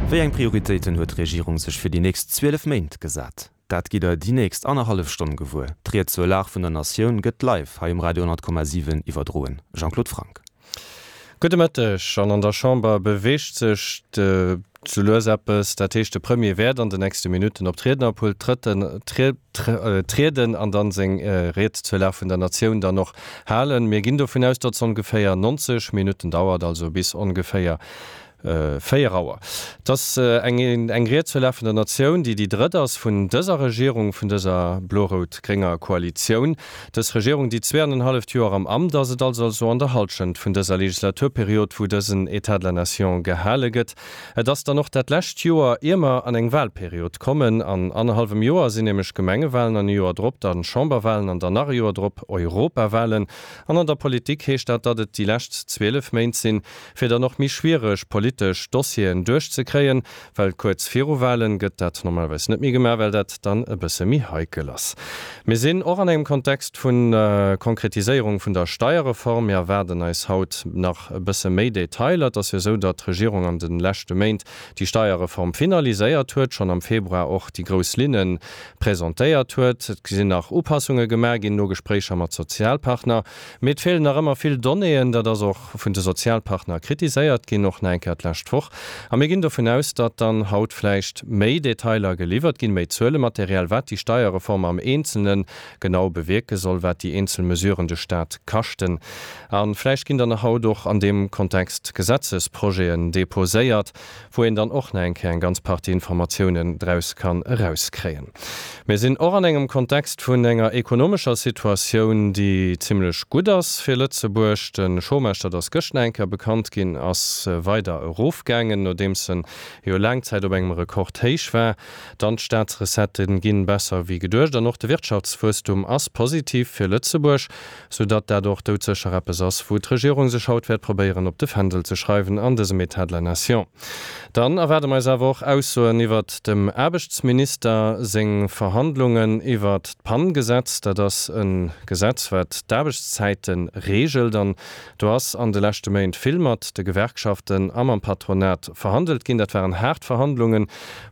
Wéi eng Prioritéiten huet d'Regierung sech fir déi nächst 12 Méint gesat? Dat gitt der déi nächst annerhallef Stonn gewuer. D'Ried zur Lag vun der Natioun gëtt live hei um Radio 10,7 iwwerdroen. Jean-Claude Franck. Gudde Mëtteg. An an der Chamber beweegt sech sou lues eppes. Dat heescht, de Premier wäert an de nächste Minutten op d'Riednerpult trieden an dann seng Ried zur Lag vun der Natioun dann och halen. Mir ginn dovun aus, datt se ongeféier 90 Minutten dauert, also bis ongeféier 4 Auer. Et ass eng eng Ried zur Lag vun der Natioun, déi déi drëtt ass vun dëser Regierung, vun dëser blo-rout-grénger Koalitioun. Dës Regierung, déi zweeanenhalleft Joer am Amt ass, et ass also an der Halschent vun dëser Legislaturperiod, wou dësen État de la Nation gehale gëtt. Et ass dann och dat lescht Joer, ier mer an eng Wahlperiod kommen. An annerhallwem Joer sinn nämlech Gemengewahlen an e Joer drop dann Chamberwahlen an dann nach e Joer drop Europawahlen. An an der Politik heescht dat, datt et déi lescht 12 Méint sinn, fir dann och méi schwiereg politesch Dossieren duerchzekréien, well kuerz viru Wahlen gëtt dat normalerweis net méi gemaach, well dat dann e bësse méi heikel ass. Mir sinn och an engem Kontext vu Konkretiséierung vun der Steierreform. Mir erwaarden eis haut nach e bësse méi Detailer. Et ass jo esou, datt d'Regierung an de leschte Méint déi Steierreform finaliséiert huet, schonn am Februar och déi grouss Linne presentéiert huet. Et sinn nach Upassunge gemaach ginn no Gespréicher mat Sozialpartner. Mee et feelen nach ëmmer vill Donnéeën. Dat ass och vun de Sozialpartner kritiséiert ginn, och nach eng Kéier d'lescht Woch. A mir ginn dovun aus, datt dann haut vläicht méi Detailer geliwwert ginn, méi Zuelematerial, wat déi Steierreform am Eenzelne genau bewierke soll, wat déi eenzel Mesuren de Staat kaschten. A vläicht ginn dann haut och an deem Kontext Gesetzesprojeten deposéiert, wou een dann och nach eng Kéier eng ganz Partie Informatiounen draus kann erauskréien. Mir sinn och an engem Kontext vun enger ekonomescher Situatioun, déi zimlech gutt ass fir Lëtzebuerg. De Chômage, dat ass gëscht nach eng Kéier bekannt ginn, ass weider erofgaangen, nodeems en jo laang Zäit op engem Rekordhéich war. Dann d'Staatsrecettë ginn besser wéi geduecht an och de Wirtschaftswuesstum ass positiv fir Lëtzebuerg. Sou datt dat och doudsécher eppes ass, wou d'Regierung sech haut wäert probéieren op de Fändel ze schreiwen an dësem État de la nation. Dann erwaarde mer eis awer och Aussoen iwwert dem Aarbechtsminister seng Verhandlungen iwwert d'PAN-Gesetz. Dat ass e Gesetz, wat d'Aarbechtszäite reegelt. An do ass an de leschte Méint vill mat de Gewerkschaften a mam Patronat verhandelt ginn. Dat waren haart Verhandlungen,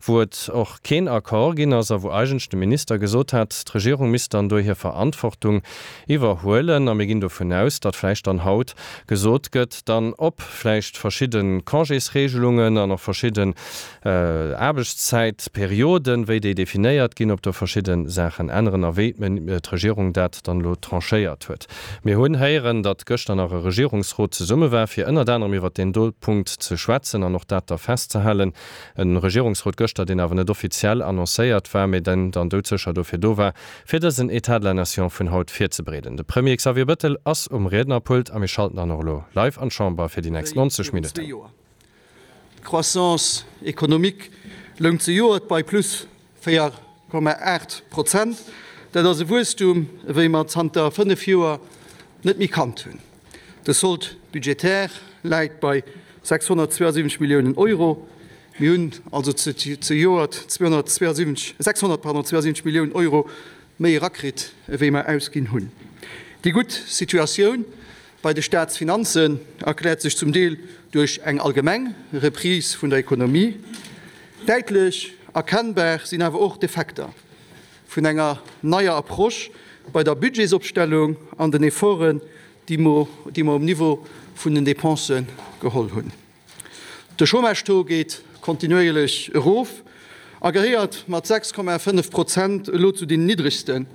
wou et och keen Accord ginn ass a wou eigentlech de Minister gesot hat, d'Regierung misst dann do hir Verantwortung iwwerhuelen. A mir ginn dovun aus, datt vläicht dann haut gesot gëtt, dann op vläicht verschidde Congésregelungen an och verschidden Aarbechtszäitperioden, wéi déi definéiert ginn, ob do verschidde Saachen änneren a wéi d'Regierung dat dann elo tranchéiert huet. Mir hunn héieren, datt gëschter nach e Regierungsrot zesumme war, fir ënnert anerem iwwert deen do Punkt ze schwätzen an och dat da festzehalen. E Regierungsrot gëschter, deen awer net offiziell annoncéiert war, mee den dann doudsécher dofir do war, fir dësen État de la Nation vun haut virzebereeden. De Premier Xavier Bëttel ass um Riednerpult a mir schalten dann och elo live an d'Chamber fir déi nächst wéi 90 virun Minutten. zwee Joer. D'Croissance économique loung zejoert bei plus 4,8 Prozent. Dat ass e Wuesstum, ewéi mer zanter 5 Joer net méi kannt hunn. De Solde budgétaire läit bei 672 Milliounen Euro. Mir hunn also zejoert 272, 600, pardon, 72 Milliounen Euro méi erakritt, ewéi mer ausginn hunn. Déi gutt Situatioun bei de Staatsfinanzen erkläert sech zum Deel duerch eng allgemeng Reprise vun der Ekonomie. Däitlech erkennbar sinn awer och d'Effekter vun enger neier Approche bei der Budgetsopstellung an den Efforten, déi mer um Niveau vun den Dépensë geholl hunn. De Chômage-Taux geet kontinuéierlech erof a gehéiert mat 6,5 Prozent elo zu den niddregsten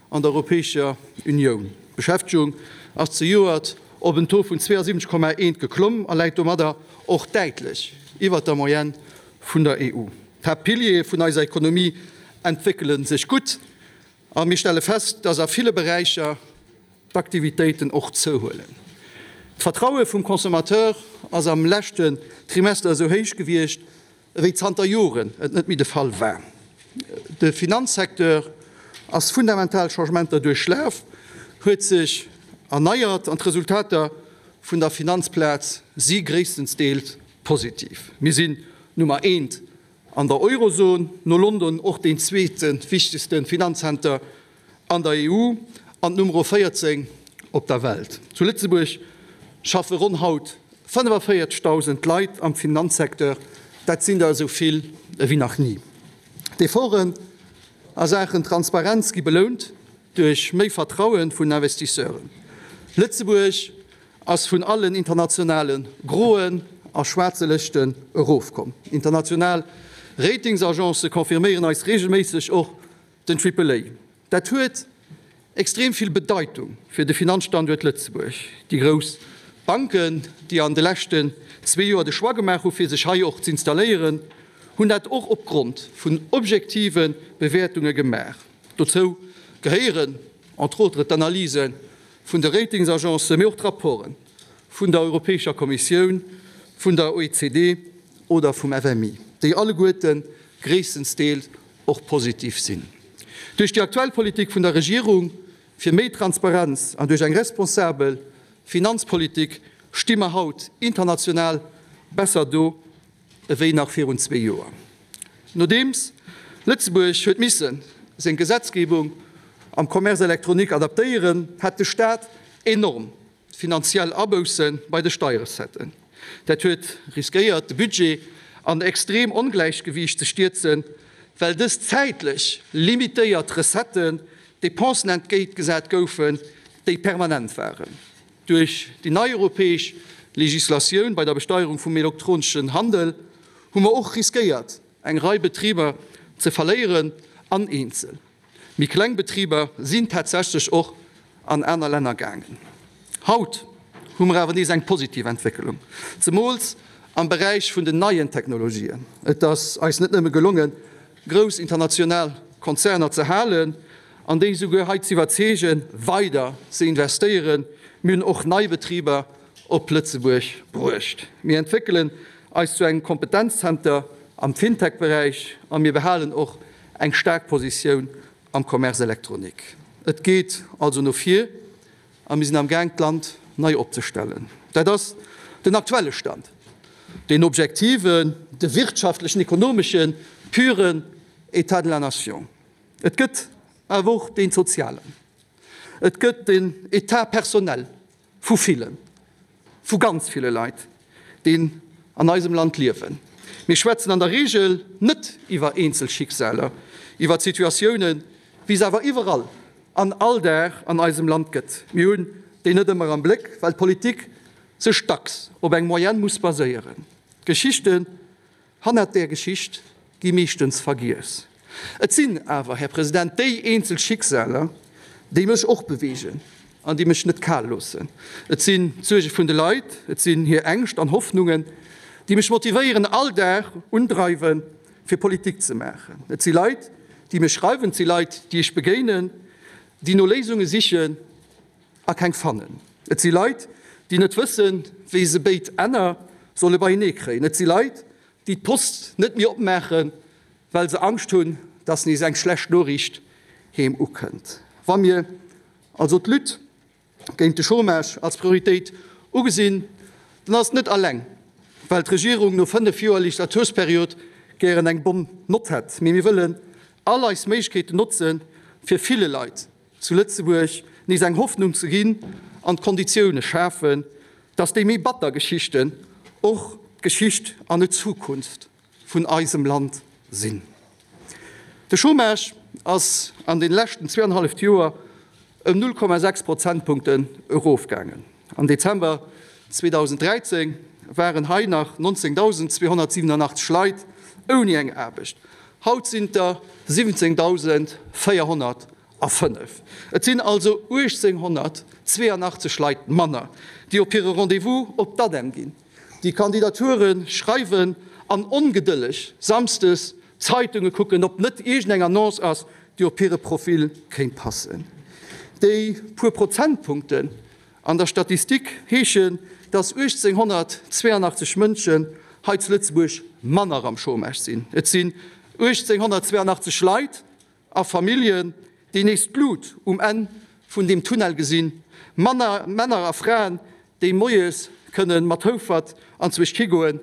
an der Europäescher Unioun. D'Beschäftegung ass zejoert op en Taux vun 72,1 geklomm a läit domadder och däitlech iwwert der Moyenne vun der EU. D'Haaptpiliere vun eiser Ekonomie entwéckele sech gutt a mir stelle fest, dass a ville Beräicher d'Aktivitéiten och zouhuelen. D'Vertraue vum Consommateur ass am leschten Trimester esou héich gewiescht, ewéi zanter Joren et net méi de Fall war. De Finanzsecteur ass fundamental Changementer duerchlaf, huet sech erneiert an d'Resultater vun der Finanzplaz si gréisstensdeels positiv. Mir sinn Nummer eent an der Eurozon, no London och deen zweete wichtegste Finanzzenter an der EU an d'Nummer 14 op der Welt. Zu Lëtzebuerg schaffe ronn haut 45.000 Leit am Finanzsecteur. Dat sinn der esou vill ewéi nach ni. D'Efforten a Saachen Transparenz gi belount duerch méi Vertraue vun Investisseuren. Lëtzebuerg ass vun allen internationale groen a schwaarze Lëschten erofkomm. International Ratingsagencë confirméieren eis reegelméisseg och den Triple A. Dat huet extrem vill Bedeitung fir de Finanzstanduert Lëtzebuerg. Déi grouss Banken, déi an de leschten zwee Joer de Choix gemaach hu fir sech hei och z'installéieren, hunn dat och opgrond vun objektive Bewäertunge gemaach. Dozou gehéieren entre autres d'Analyse vun de Ratingsagencen, mee och d'Rapporte vun der Europäescher Kommissioun, vun der OECD oder vum FMI, déi alleguerte gréisstensdeels och positiv sinn. Duerch déi aktuell Politik vun der Regierung fir méi Transparenz an duerch eng responsabel Finanzpolitik sti mer haut international besser do ewéi nach virun zwee Joer. Nodeems Lëtzebuerg huet misse seng Gesetzgebung am Commerce électronique adaptéieren, hat de Staat enorm finanziell Abousse bei de Steierrecetten. Dat huet riskéiert, de Budget an extrem Ongläichgewiicht ze stierzen, well dës zäitlech limitéiert Recetten Dépensen entgéintgesat goufen, déi permanent waren. Duerch déi nei europäesch Legislatioun bei der Besteierung vum elektroneschen Handel hu mer och riskéiert, eng Rei Betriber ze verléieren an eenzel méi kleng Betriber sinn tatsächlech och an aner Länner gaangen. Haut hu mer awer nees eng positiv Entwécklung, zemools am Beräich vun den neien Technologien. Et ass eis net nëmme gelongen, grouss international Konzerner ze halen an déi souguer hei z'iwwerzeegen, weider ze investéieren, mir hunn och nei Betriber op Lëtzebuerg bruecht. Mir entwéckelen eis zu engem Kompetenzzenter am Fintech-Beräich a mir behalen och eng staark Positioun am Commerce électronique. Et geet also no vir a mir sinn am Gaang d'Land nei opzestellen. Dat ass den aktuelle Stand, deen objektiven, de wirtschaftlechen, ekonomeschen, puren État de la nation. Et gëtt awer och deen sozialen. Et gëtt den État personnel vu villen, vu ganz ville Leit, déi an eisem Land liewen. Mir schwätzen an der Regel net iwwer eenzel Schicksaler, iwwer Situatiounen, wéi se awer iwwerall an all Dag an eisem Land gëtt. Mir hunn déi net ëmmer am Bléck, well d'Politik sech dacks op eng Moyenne muss baséieren. D'Geschichten Hannert där Geschicht gi meeschtens vergiess. Et sinn awer, Här President, déi eenzel Schicksaler, déi mech och beweegen an déi mech net kal loossen. Et sinn d'Suerge vun de Leit, et sinn hir Ängscht an Hoffnungen, déi mech motivéieren, all Dag undreiwen, fir Politik ze maachen. Et si Leit, déi mir schreiwen, et si Leit, déi ech begéinen, déi no Léisunge sichen a keng fannen. Et si Leit, déi net wëssen, wéi se béid Enner solle beienee kréien. Et si Leit, déi d'Post net méi opmaachen, well se Angscht hunn, dass nees eng schlecht Noriicht heem ukënnt. Wa mir also d'Lutte géint de Chômage als Prioritéit ugesinn, dann ass et net alleng, well d'Regierung no 5 Joer Legislatursperiod gären eng bonne Nott hätt, mee mir wëllen all eis Méiglechkeeten notzen, fir ville Leit zu Lëtzebuerg nees eng Hoffnung ze ginn an d'Konditioune schafen, dass déi méi batter Geschichten och d'Geschicht an net d'Zukunft vun eisem Land sinn. De Chômage ass an de leschten zweeanhalleft Joer ëm 0,6 Prozentpunkten erofgaangen. Am Dezember 2013 waren hei nach 19.287 Leit ouni eng Aarbecht, haut sinn et der 17.405. Et sinn also 1.882 Leit manner, déi op hire Rendez-vous op d'ADEM ginn, déi Kandidature schreiwen an ongedëlleg samsdes d'Zeitunge kucken, ob net iergendeng Annonce ass, déi op hire Profil kéint passen. Déi puer Prozentpunkten an der Statistik heeschen, dass 1.882 Mënschen hei zu Lëtzebuerg manner am Chômage sinn. Et sinn 1.882 Leit a Familljen, déi nees d'Lut um Enn vun deem Tunnel gesinn, manner Männer a Fraen, déi moies kënne mat Houfert anzwousch higoen,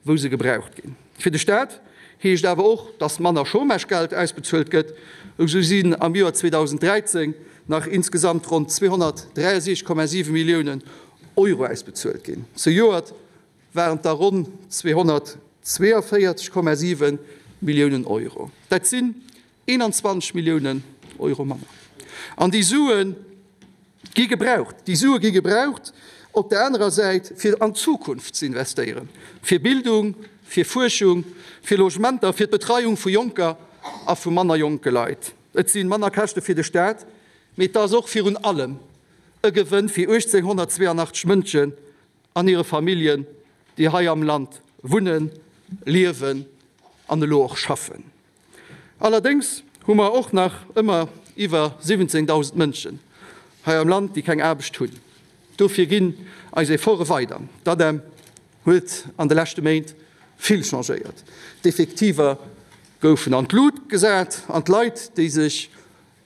wou se gebraucht ginn. Fir de Staat heescht awer och, datt manner Chômagegeld ausbezuelt gëtt. Esou sinn am Joer 2013 nach insgesamt ronn 263,7 Milliounen Euro ausbezuelt ginn. Zejoert waren et der ronn 212. 42,7 Milliounen Euro. Dat sinn 21 Milliounen Euro manner. An déi Sue gi gebraucht. Déi Sue gi gebraucht op der anerer Säit, fir an d'Zukunft ze investéieren, fir Bildung, fir Fuerschung, fir Logementer, fir d'Betreiung vu jonker a vu manner jonke Leit. Et si manner Käschte fir de Staat, mee et ass och virun allem e Gewënn fir 1.882 Mënschen an hire Familljen, déi hei am Land wunnen, liewen an elo och schaffen. Allerdéngs hu mer och nach ëmmer iwwer 17.000 Mënschen hei am Land, déi keng Aarbecht hunn. Dofir ginn eis Efforte weider. D'ADEM huet an de leschte Méint vill changéiert. D'Effektiver goufen an d'Lut gesat an d'Leit, déi sech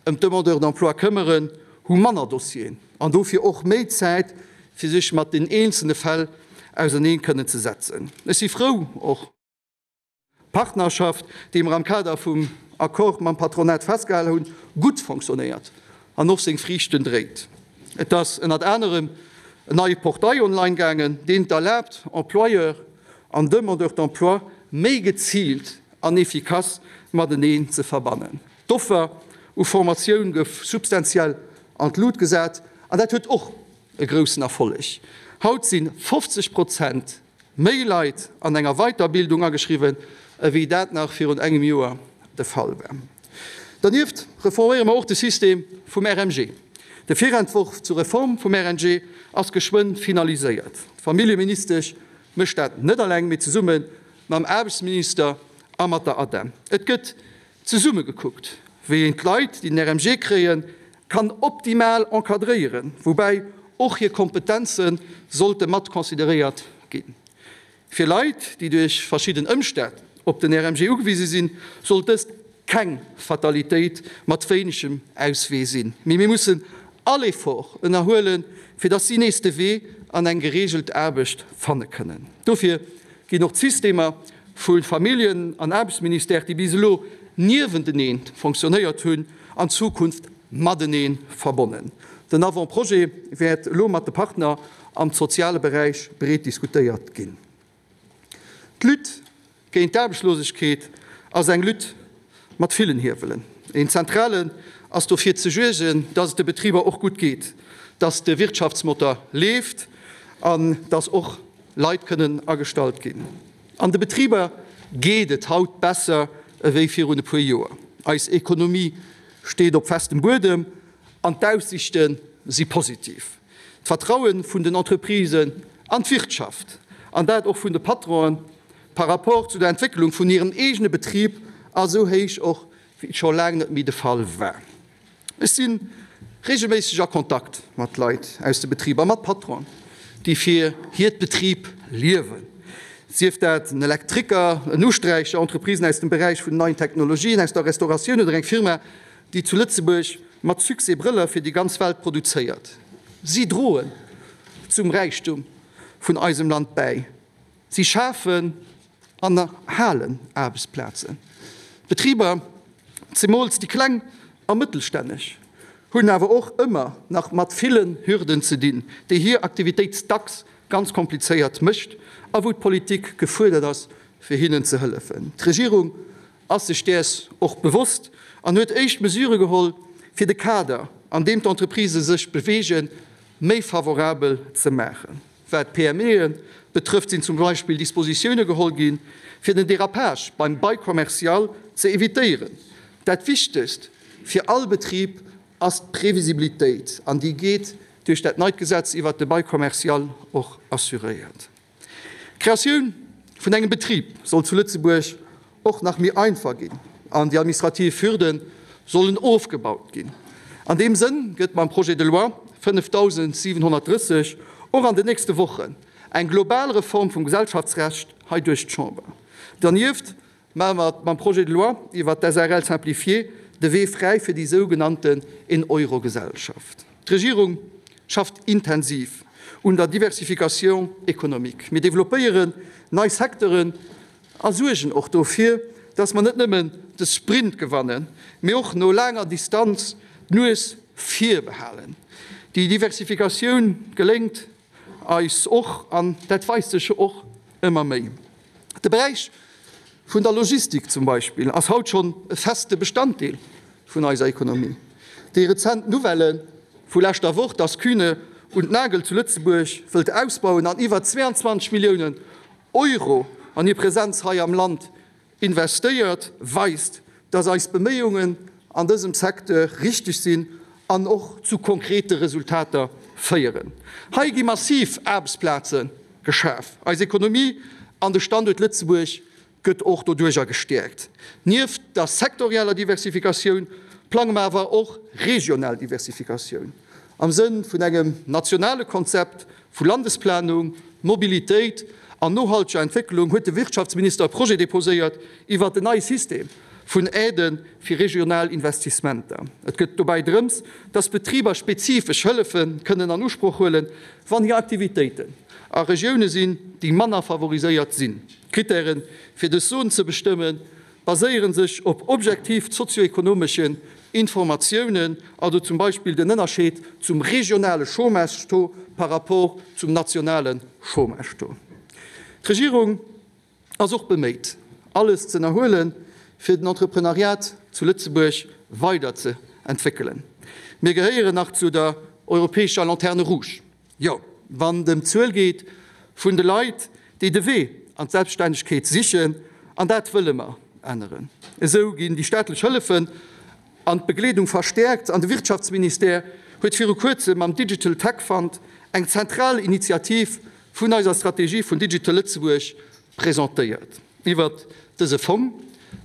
ëm d'Demandeurs d'emploi këmmeren, hu manner Dossieren an dofir och méi Zäit, fir sech mat den eenzelne Fäll auserneen kënnen ze setzen. Ech si frou och. D'Partnerschaft, déi mer am Kader vum Accord mam Patronat festgehal hunn, gutt fonctionnéiert an och seng Friichten dréit. Et ass ënnert anerem en neie Portail online gaangen, deen et erlaabt, Employeur an Demandeur d'emploi méi geziilt an efficace mateneen ze verbannen. D'Offer u Formatioun gouf substantiell an d'Lut gesat an dat huet och e groussen Erfolleg. Haut si 50 Prozent méi Leit an enger Weiterbildung ageschriwwen, ewéi dat nach virun engem Joer de Fall war. Dernieft reforméiere mer och de System vum RMG. De Virentworf zur Reform vum RNG ass geschwënn finaliséiert. D'Familljeministesch mécht dat net alleng, mee zesumme mam Aarbechtsminister a mat der ADEM. Et gëtt Zesumme gekuckt, wéi een d'Leit, déi den RMG kréien, kann optimal encadréieren, woubäi och hir Kompetenze sollte mat consideréiert ginn. Fir Leit, déi duerch verschidden Ëmstänn op den RMG ugewise sinn, sollt dëst keng Fatalitéit mat wéinegem Auswee sinn, mee mir mussen all Effort ënnerhuelen, fir dass si nees de Wee an eng gereegelt Aarbecht fanne kënnen. Dofir ginn och d'Systemer vu Familljen an Aarbechtsministère, déi bis elo niewentenee fonctionnéiert hunn, an Zukunft matenee verbonnen. Den Avant-projet wäert elo mat de Partner am soziale Beräich breet diskutéiert ginn. D'Lutte géint d'Aarbechtslosegkeet ass eng Lutte mat villen Hiewelen. Een zentralen ass dofir ze suergen, dass et de Betriber och gutt geet, dass de Wirtschaftsmotor leeft an dass och Leit kënnen agestallt ginn. An de Betriber geet et haut besser ewéi virun e puer Joer. Eis Ekonomie steet op festem Buedem an d'Aussiichte si positiv. D'Vertraue vun den Entreprisen an d'Wirtschaft, an dat och vun de Patronen, par rapport zu der Entwécklung vun hirem eegene Betrib ass esou héich och wéi et scho laang net méi de Fall war. Ech si reegelméisseg a Kontakt mat Leit aus de Betriber, mat Patronen, déi fir hiert Betrib liewen, sief dat en Elektriker, en Usträicher, Entreprisen aus dem Beräich vun den neien Technologien, aus der Restauratioun oder eng Firma, déi zu Lëtzebuerg mat Succès Brëller fir déi ganz Welt produzéiert. Si droen zum Räichtum vun eisem Land bäi. Si schafen an erhalen Aarbechtsplazen. D'Betriber, zemools déi kleng a mëttelstänneg, hunn awer och ëmmer nach mat villen Hürden ze dinn, déi hir Aktivitéit dacks ganz komplizéiert mécht a wou d'Politik gefuerdert ass, fir hinnen ze hëllefen. D'Regierung ass sech däers och bewosst an huet éischt Mesure geholl, fir de Kader, an deem d'Entreprisë sech beweegen, méi favorabel ze maachen. Wat d'PMEe betrëfft, sinn zum Beispill Dispositioune geholl ginn, fir den Dérapage beim Bail commercial ze evitéieren. Dat Wichtegst fir all Betrib ass d'Previsibilitéit, an déi geet duerch dat neit Gesetz iwwert de Bail commercial och assuréiert. D'Kreatioun vun engem Betrib soll zu Lëtzebuerg och nach méi einfach ginn an déi administrativ Hürde sollen ofgebaut ginn. An deem Sënn gëtt mam Projet de loi 5730 och an den nächste Wochen eng global Reform vum Gesellschaftsrecht hei duerch d'Chamber. Dernieft maache mer mam Projet de loi iwwert d'SARL simplifiée de Wee fräi fir déi sougenannten Een-Euro-Gesellschaft. D'Regierung schafft intensiv un der Diversification économique. Mir developpéieren nei Secteuren a suergen och dofir, dass mer net nëmmen de Sprint gewannen, mee och no laanger Distanz d'Nues vir behalen. Déi Diversifikatioun geléngt eis och, an dat weist sech jo och ëmmer méi. De Beräich vun der Logistik zum Beispill ass haut schonn e feste Bestanddeel vun eiser Ekonomie. Déi rezent Nouvellë vu leschter Woch, dass Kühne und Nagel zu Lëtzebuerg wëllt ausbauen an iwwer 22 Milliounen Euro an hir Presenz hei am Land investéiert, weist, dass eis Beméiungen an dësem Secteur richteg sinn an och zu konkrete Resultater féieren. Hei gi massiv Aarbechtsplaze geschaf. Eis Ekonomie an de Standuert Lëtzebuerg gëtt och doduerjer gestäerkt. Nieft der sektorieller Diversifikatioun plange mer awer och regional Diversifikatioun am Sënn vun engem nationale Konzept vu Landesplanung, Mobilitéit an nohalteger Entwécklung huet de Wirtschaftsminister e Projet deposéiert iwwert en neie System vun Aidë fir regional Investissementer. Et gëtt dobäi drëms, dass Betriber spezifesch Hëllefe kënnen an Usproch huelen, wann hir Aktivitéiten a Regioune sinn, déi manner favoriséiert sinn. D'Krittären, fir dës Zon ze bestëmmen, baséiere sech op objektiv sozioekonomeschen Informatiounen, also zum Beispill den Ënnerscheed zum regionale Chômage-Taux par rapport zum nationale Chômage-Taux. D'Regierung ass och beméit, alles ze ënnerhuelen, fir den Entreprenariat zu Lëtzebuerg weider ze entwéckelen. Mir gehéieren nach zu der europäescher Lanterne rouge. Jo, wann et ëm d'Zuel geet vun de Leit, déi de Wee an d'Selbststännegkeet sichen, an dat wëlle mer änneren. Esou ginn déi staatlech Hëllefen an d'Begleedung verstäerkt an de Wirtschaftsministère huet viru kuerzem mam Digital Tech Fund eng zentral Initiativ vun eiser Strategie vun Digital Lëtzebuerg presentéiert. Iwwert dëse Fong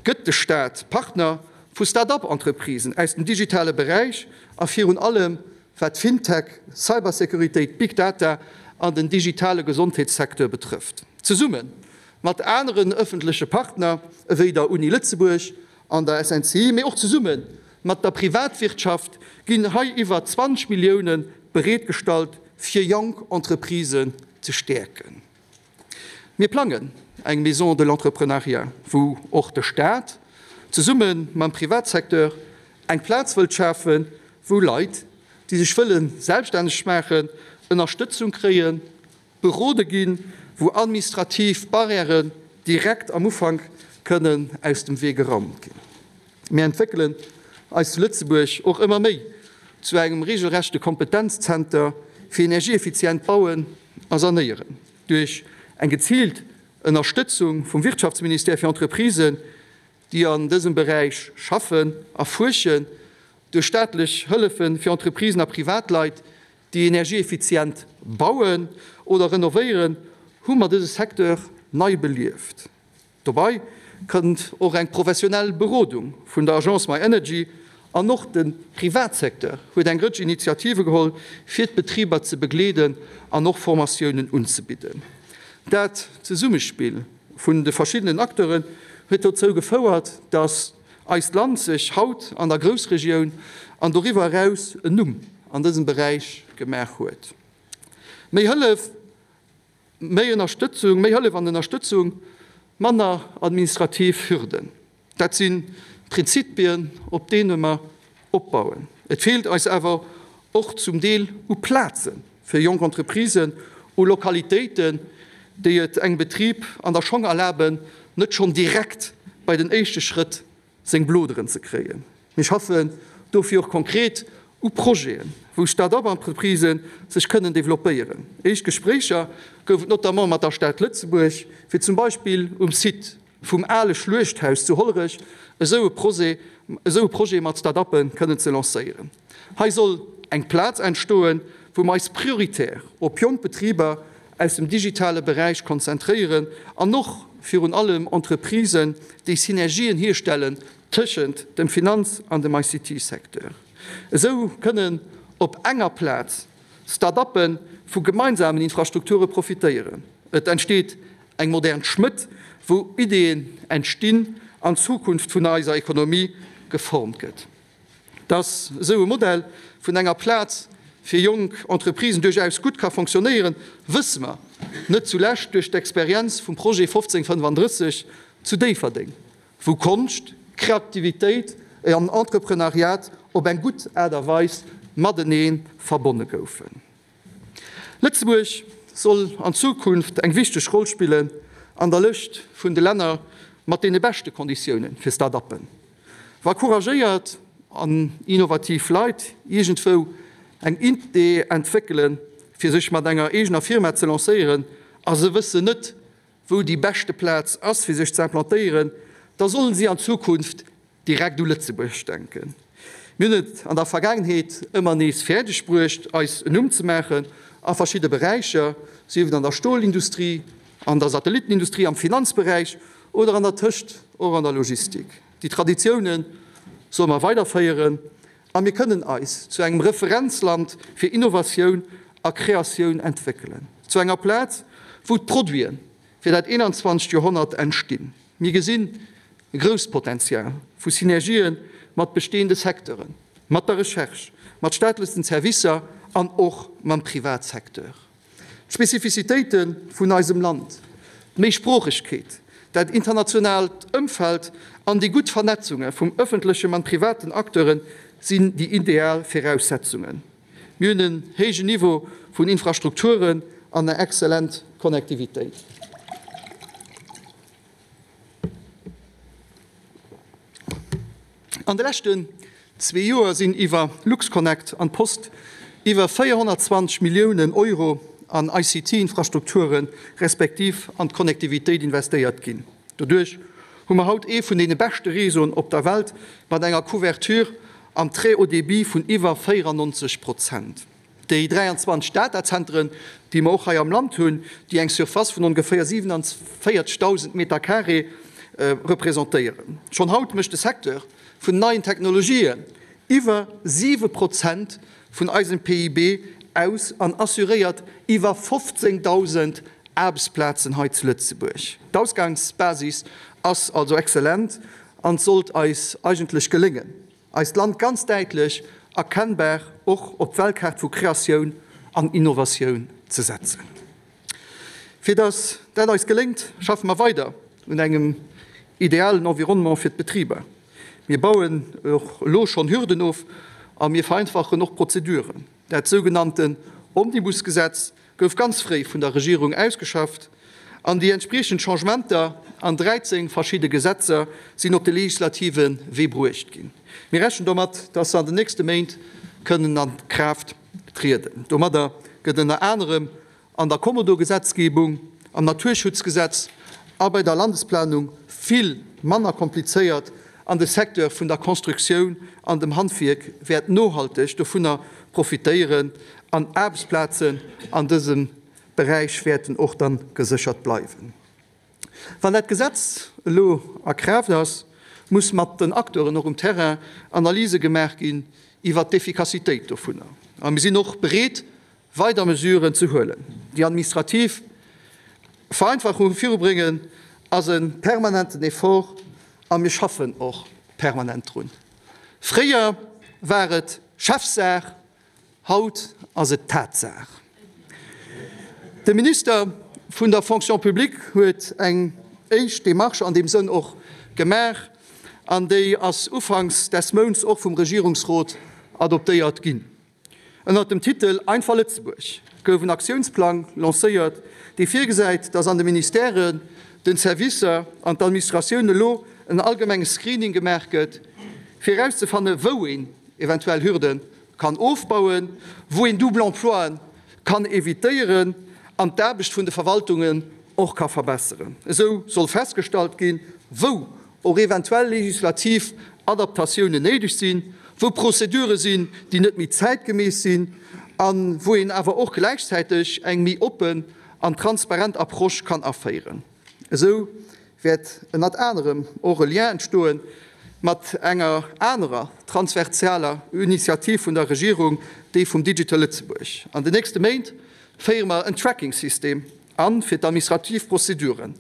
gëtt de Staat Partner vu Start-up-Entreprisen aus dem digitale Beräich a virun allem wat Fintech, Cybersécuritéit, Big Data an den digitale Gesondheetssecteur betrëfft. Zesumme mat aneren ëffentleche Partner ewéi der Uni Lëtzebuerg an der SNCI, mee och zesumme mat der Privatwirtschaft ginn hei iwwer 20 Millioune bereetgestallt, fir jonk Entreprisen ze stäerken. Mir plangen eng Maison de l'entrepreneuriat, wou och de Staat zesumme mam Privatsecteur eng Plaz wëllt schafen, wou Leit, déi sech wëlle selbststänneg maachen, Ënnerstëtzung kréien, berode ginn, wou administrativ Barrièren direkt am Ufank kënnen aus dem Wee geraumt ginn. Mir entwéckelen eis zu Lëtzebuerg och ëmmer méi zu engem regelrechte Kompetenzzenter fir energieeffizient Bauen a Sanéieren. Duerch eng geziilt Ënnerstëtzung vum Wirtschaftsministère fir Entreprisen, déi an dësem Beräich schaffen a fuerschen, duerch staatlech Hëllefe fir Entreprisen a Privatleit, déi energieeffizient bauen oder renovéieren, hu mer dëse Secteur nei belieft. Dobei kënnt och eng professionell Berodung vun der Agence My Energy an och de Privatsecteur huet eng Rëtsch Initiative geholl, fir d'Betriber ze begleeden an och Formatiounen unzebidden. Dat Zesummespill vun de verschiddenen Acteuren huet dozou gefouert, datt eist Land sech haut an der Groussregioun an doriwwer eraus en Numm an dësem Beräich gemaach huet. Méi Hëllef Méi Ënnerstëtzung, méi Hëllef an Ënnerstëtzung, manner administrativ Hürden, dat si Prinzipien, op deene mer opbauen. Et feelt eis awer och zum Deel u Plaze fir jonk Entreprisen, u Lokalitéiten, déi et engem Betrib an der Schong erlaben, net schonn direkt bei den éischte Schrëtt seng Bloderen ze kréien. Mir schaffen dofir och konkret u Projeten, wou Start-up-Entreprisë sech kënnen developpéieren. Éischt Gespréicher gouf et notamment mat der Stad Lëtzebuerg, fir zum Beispill um Site vum ale Schluechthaus zu Hollerech esou e Projet esou e Projet mat Start-uppe kënnen ze lancéieren. Hei soll eng Plaz entstoen, wou mer eis prioritär op jonk Betriber aus dem digitale Beräich konzentréieren an och virun allem Entreprisen, déi Synergien hierstellen tëschent dem Finanz an dem ICT-Secteur. Esou kënnen op enger Plaz Start-uppe vu gemeinsamen Infrastrukture profitéieren. Et entsteet eng modern Schmëtt, wou Ideeën entstinn an d'Zukunft vun eiser Ekonomie geformt gëtt. Dass esou e Modell vun enger Plaz fir jonk Entreprisen duerchaus gutt ka fonctionnéieren, wësse mer, net zulescht duerch d'Experienz vum Projet 1535 zu Déifferdeng, wou Konscht, Kreativitéit an Entreprenariat op eng gutt Aart a Weis matenee verbonne goufen. Lëtzebuerg soll an Zukunft eng wichteg Roll spille. an der Lëscht vun de Länner mat deene beschte Konditioune fir Start-uppen. Wa couragéiert an innovativ Leit iergendwou eng Idee entwéckelen, fir sech mat enger eegener Firma ze lancéieren a se wëssen net, wou déi beschte Plaz ass, fir sech ze implantéieren, da sollen si an Zukunft direkt u Lëtzebuerg denken. Mir hunn et an der Vergaangenheet ëmmer nees fäerdeg bruecht, eis en Numm ze maachen a verschidde Beräicher, sief et an der Stolindustrie, an der Satellittenindustrie, am Finanzberäich oder an der Tëscht och an der Logistik. Déi Traditioune solle mer weiderféieren a mir kënnen eis zu engem Referenzland fir Innovatioun a Kreatioun entwéckelen, zu enger Plaz, wou d'Produite fir dat 21. Joerhonnert entstinn. Mir gesinn e grousst Potenzial vu Synergië mat bestehende Secteuren, mat der Recherche, mat staatlechen Servicer an och mam Privatsecteur. D'Spezifizitéite vun eisem Land, d'Méisproochegkeet, dat internationaalt Ëmfeld an déi gutt Vernetzunge vum ëffentlechem an privaten Acteure sinn déi ideal Viraussetzungen. Mir hunn en héijen Niveau vun Infrastrukturen an eng exzellent Connectivitéit. An de leschten zwee Joer sinn iwwer LuxConnect an d'Post iwwer 420 Milliounen Euro an ICT-Infrastrukture respektiv an d'Connectivitéit investéiert ginn. Doduerch hu mer haut ee vun deene beschte Réseauen op der Welt mat enger Couverture am Très haut débit vun iwwer 94 Prozent. Déi 23 Datazenteren, déi mer och hei am Land hunn, déi eng Surface vun ongeféier 47.000 Meter carré representéieren. Schonn haut mécht de Secteur vun neien Technologien iwwer 7 Prozent vun eisem PIB aus an assuréiert iwwer 15.000 Aarbechtsplazen hei zu Lëtzebuerg. D'Ausgangsbasis ass also exzellent an et sollt eis eigentlech geléngen, eist Land ganz däitlech erkennbar och op d'Weltkaart vu Kreatioun an Innovatioun ze setzen. Fir datt dat eis geléngt, schaffe mer weider un engem idealen Environnement fir d'Betriber. Mir bauen och elo schonn Hürden of a mir vereinfachen och Prozeduren. Dat sougenannten Omnibusgesetz gouf ganz fréi vun der Regierung ausgeschafft an déi entspriechend Changementer an 13 verschidde Gesetzer sinn op de legislative Wee bruecht ginn. Mir rechnen domat, dass se an den nächste Méint kënnen a Kraaft trieden. Domadder gëtt ënner anerem an der Kommodo-Gesetzgebung, am Naturschutzgesetz a bei der Landesplanung vill manner komplizéiert an de Secteur vun der Constructioun an dem Handwierk wäert nohalteg dovunner profitéieren an Aarbechtsplazen an dësem Beräich wäerten och dann geséchert bleiwen. Wann dat Gesetz elo a Kraaft ass, muss mat den Acteuren och um Terrain Analyse gemaach ginn iwwert d'Effikassitéit dovunner. A mir sinn och bereet, weider Mesuren ze huelen. Déi administrativ Vereinfachung virubréngen ass e permanenten Effort a mir schaffen och permanent drun. Fréier war et Chefsaach, haut ass et Tatsaach. De Minister vun der Fonction publique huet eng éischt Démarche an deem Sënn och gemaach an déi ass ufanks des Mounts och vum Regierungsrot adoptéiert ginn. Ënnert dem Titel Einfach Lëtzebuerg gouf en Aktiounsplang lancéiert, dee virgesäit, datt an de Ministèren, den Servicer an d'Administratioun elo en allgemenge Screening gemaach gëtt, fir erauszefanne wou een eventuell Hürde kann ofbauen, wou een Double Emploien kann evitéieren an d'Aarbecht vun de Verwaltungen och ka verbesseren. Esou soll festgestallt ginn, wou och eventuell legislativ Adaptatiounen néideg sinn, wou Prozedure sinn, déi net méi zäitgemäss sinn a wou een awer och gläichzäiteg eng méi oppen an transparent Approche kann aféieren. Esou wäert ënnert anerem och e Lien entstoe mat enger anerer transversaler Initiativ vun der Regierung, déi vum Digital Lëtzebuerg. An den nächste Méint féiere mer en Tracking-System an fir d'administrativ Prozeduren.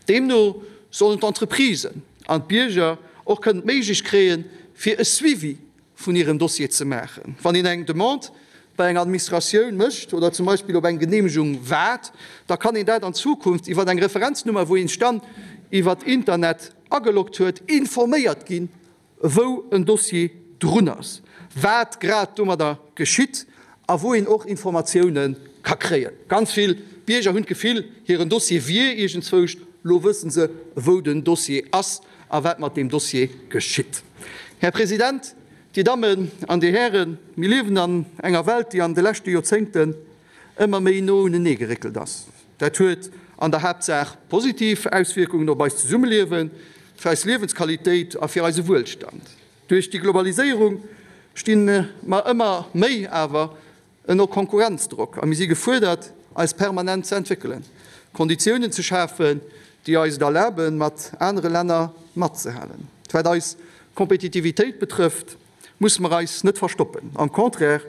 Deemno sollen d'Entreprisen an d'Bierger och kënnen d'Méiglech kréien, fir e Suivi vun hirem Dossier ze maachen. Wann een eng Demande bei enger Administratioun mécht oder zum Beispill op eng Geneemegung waart, da kann een dat an Zukunft iwwer eng Referenznummer, wou een sech dann iwwer Internet ageloggt huet, informéiert ginn, wou en Dossier drun ass, wat grad domadder geschitt a wou een och Informatioune ka kréien. Ganz vill Bierger hunn d'Gefill, hiren Dossier wier iergendzwousch. Lo wësse se, wou den Dossier ass a wat mat deem Dossier geschitt. Här President, Dir Dammen an Dir Hären, mir liewen an enger Welt, déi an de leschte Joerzéngten ëmmer méi no unenee geréckelt ass. Dat huet an der Haaptsaach positiv Auswierkungen op eist Zesummeliewen, fir eis Liewensqualitéit a fir eise Wuelstand. Duerch déi Globaliséierung sti mer ëmmer méi awer ënner Konkurrenzdrock a mir si gefuerdert, eis permanent ze entwéckelen, Konditiounen ze schafen, déi eis et erlaben, mat anere Länner matzehalen. Wat eis Kompetitivitéit betrëfft, musse mer eis net verstoppen. Am Contraire,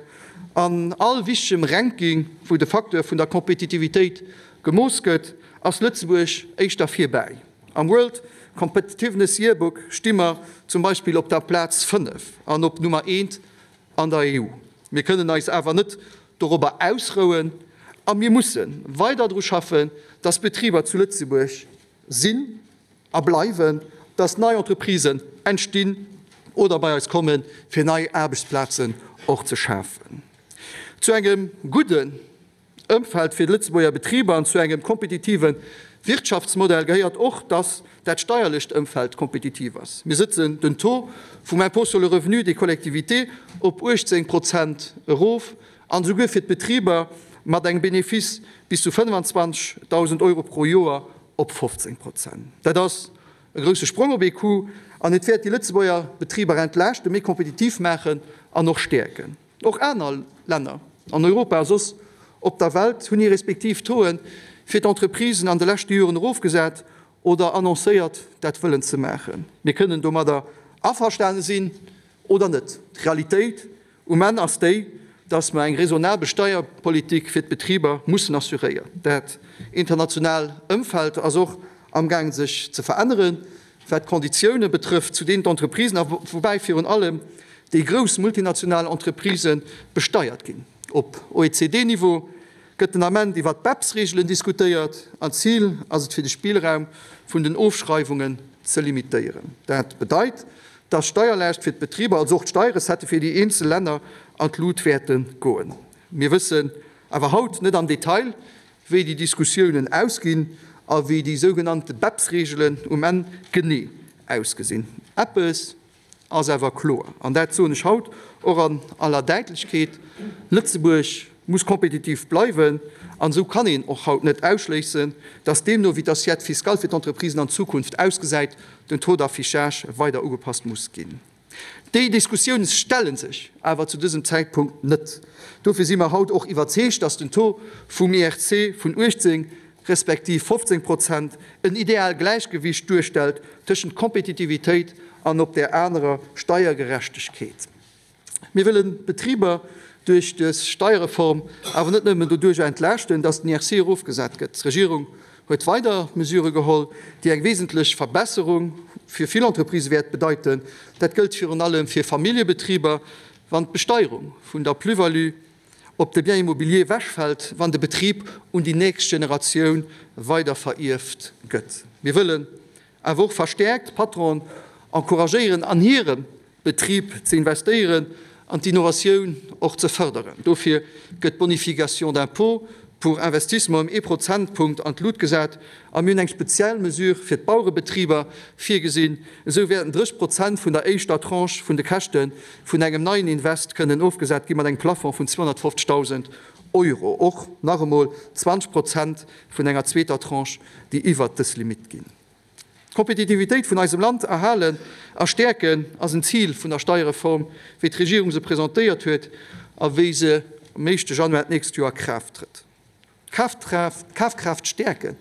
an all wichtegem Ranking, wou de Facteur vun der Kompetitivitéit gemooss gëtt, ass Lëtzebuerg éischter virbäi. Am World Competitiveness Yearbook sti mer zum Beispill op der Plaz 5 an op Nummer eent an der EU. Mir kënnen eis awer net dorobber ausrouen a mir musse weider dru schaffen, dass Betriber zu Lëtzebuerg sinn a bleiwen, dass nei Entreprisen entstinn oder bei eis kommen, fir nei Aarbechtsplazen och ze schafen. Zu engem gudden Ëmfeld fir d'Lëtzebuerger Betriber an zu engem kompetitive Wirtschaftsmodell gehéiert och, dass dat steierlecht Ëmfeld kompetitiv ass. Mir sëtzen den Taux vum Impôt sur le revenu des collectivités op 18 Prozent erof an esouguer fir d'Betriber mat engem Benefice bis zu 25.000 Euro pro Joer op 15 Prozent. Dat ass e grousse Sprong op ee Coup an et wäert déi Lëtzebuerger Betriber entlaaschten, méi kompetitiv maachen an och stäerken. Och aner Länner an Europa a soss op der Welt hunn hir respektiv Tauxen fir d'Entreprisen an de leschte Joren erofgesat oder annoncéiert, dat wëllen ze maachen. Mir kënnen domadder averstane sinn oder net. D'Realitéit um Enn ass déi, dass mer eng raisonnabel Steierpolitik fir d'Betriber mussen assuréieren. Dat international Ëmfeld ass och amgaangen sech ze veränneren. Wat d'Konditioune betrëfft, zu deenen d'Entreprisen, a woubäi virun allem déi grouss multinational Entreprisë besteiert ginn. Op OECD-Niveau gëtt den Ament iwwer d'BEPS-Reegelen diskutéiert an d'Zil ass et fir de Spillraum vun den Ofschreiwungen ze limitéieren. Dat bedeit, datt d'Steierlaascht fir d'Betriber, also och d'Steierrecettë fir déi eenzel Länner an d'Lut wäerte goen. Mir wëssen awer haut net am Detail, wéi déi Diskussiounen ausginn a wéi déi sougenannte BEPS-Reegelen um Enn genee ausgesinn. Eppes ass awer kloer, an dat soen ech haut och an aller Däitlechkeet, Lëtzebuerg muss kompetitiv bleiwen an esou kann een och haut net ausschléissen, dass deemno wéi d'Assiette fiscale fir d'Entreprisen an Zukunft ausgesäit, den Taux d'affichage weider ugepasst muss ginn. Déi Diskussioune stelle sech awer zu dësem Zäitpunkt net. Dofir si mer haut och iwwerzeegt, dass den Taux vum IRC vun 18 respektiv 15 Prozent en ideal Gläichgewicht duerstellt tëschent Kompetitivitéit an op där anerer Steiergerechtegkeet. Mir wëllen d'Betriber duerch dës Steierreform awer net nëmmen doduercher entlaaschten, dass den IRC erofgesat gëtt. D'Regierung huet weider Mesurë geholl, déi eng wesentlech Verbesserung fir vill Entreprisë wäert bedeiten. Dat gëllt virun allem fir Familljebetriber, wann d'Besteierung vun der Plus-value op de Bien immobilier ewechfält, wann de Betrib un déi nächst Generatioun weiderverierft gëtt. Mir wëllen awer och verstäerkt d'Patronen encouragéieren, an hirem Betrib ze investéieren an d'Innovatioun och ze fërderen. Dofir gëtt d'Bonification d'impôt pour investissement ëm ee Prozentpunkt an d'Lut gesat a mir hunn eng speziell Mesure fir d'Bauerebetriber virgesinn. Esou wäerten 30 Prozent vun der éischter Tranche vun de Käschte vun engem neien Invest kënnen ofgesat gi mat engem Plafond vun 250.000 Euro. Och nach emol 20 Prozent vun enger zweeter Tranche, déi iwwert dës Limitt ginn. D'Kompetitivitéit vun eisem Land erhalen a stäerken ass en Zil vun der Steierreform, wéi d'Regierung se presentéiert huet a wéi se am éischte Januar d'nächst Joer a Kraaft trëtt. D'Kafkraaft stäerken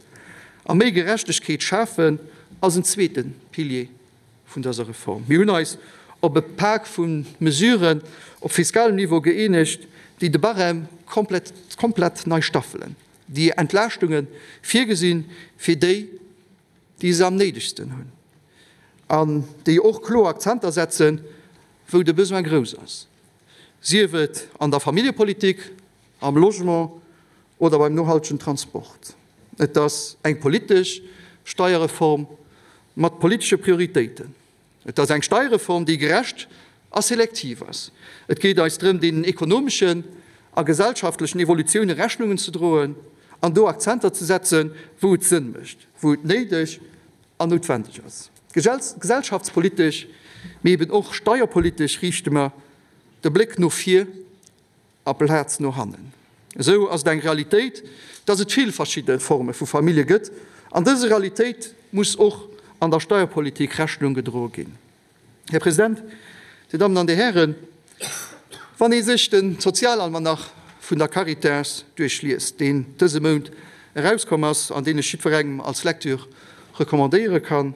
a méi Gerechtegkeet schafen ass en zweete Pilier vun dëser Reform. Mir hunn eis op e Pak vu Mesuren op fiskalem Niveau gëeenegt, déi de Barème komplett nei staffelen. déi Entlaaschtunge virgesinn, fir déi, déi se am néidegsten hunn, an déi och kloer Akzenter setzen, wou de Besoin grouss ass, sief et an der Familljepolitik, am Logement oder beim nohaltegen Transport. Et ass eng politesch Steierreform mat politesche Prioritéiten. Et ass eng Steierreform, déi gerecht a selektiv ass. Et geet eis drëm, deenen ekonomeschen a gesellschaftlechen Evolutioune Rechnungen ze droen. An do Akzenter ze setzen, wou et Sënn mécht, wou et néideg an noutwendeg ass. Gesellschaftspolitesch, mee eben och steierpolitesch riichte mer de Bléck no vir aplaz no hannen. Esou ass et eng Realitéit, dass et vill verschidde Forme vu Famillje gëtt, an dëser Realitéit muss och an der Steierpolitik Rechnung gedroe ginn. Här President, Dir Dammen an Dir Hären, wann ee sech de Sozialalmanach vun der Caritas duerchliest, deen dëse Mount erauskomm ass an deen ech jiddwerengem als Lecture recommandéiere kann,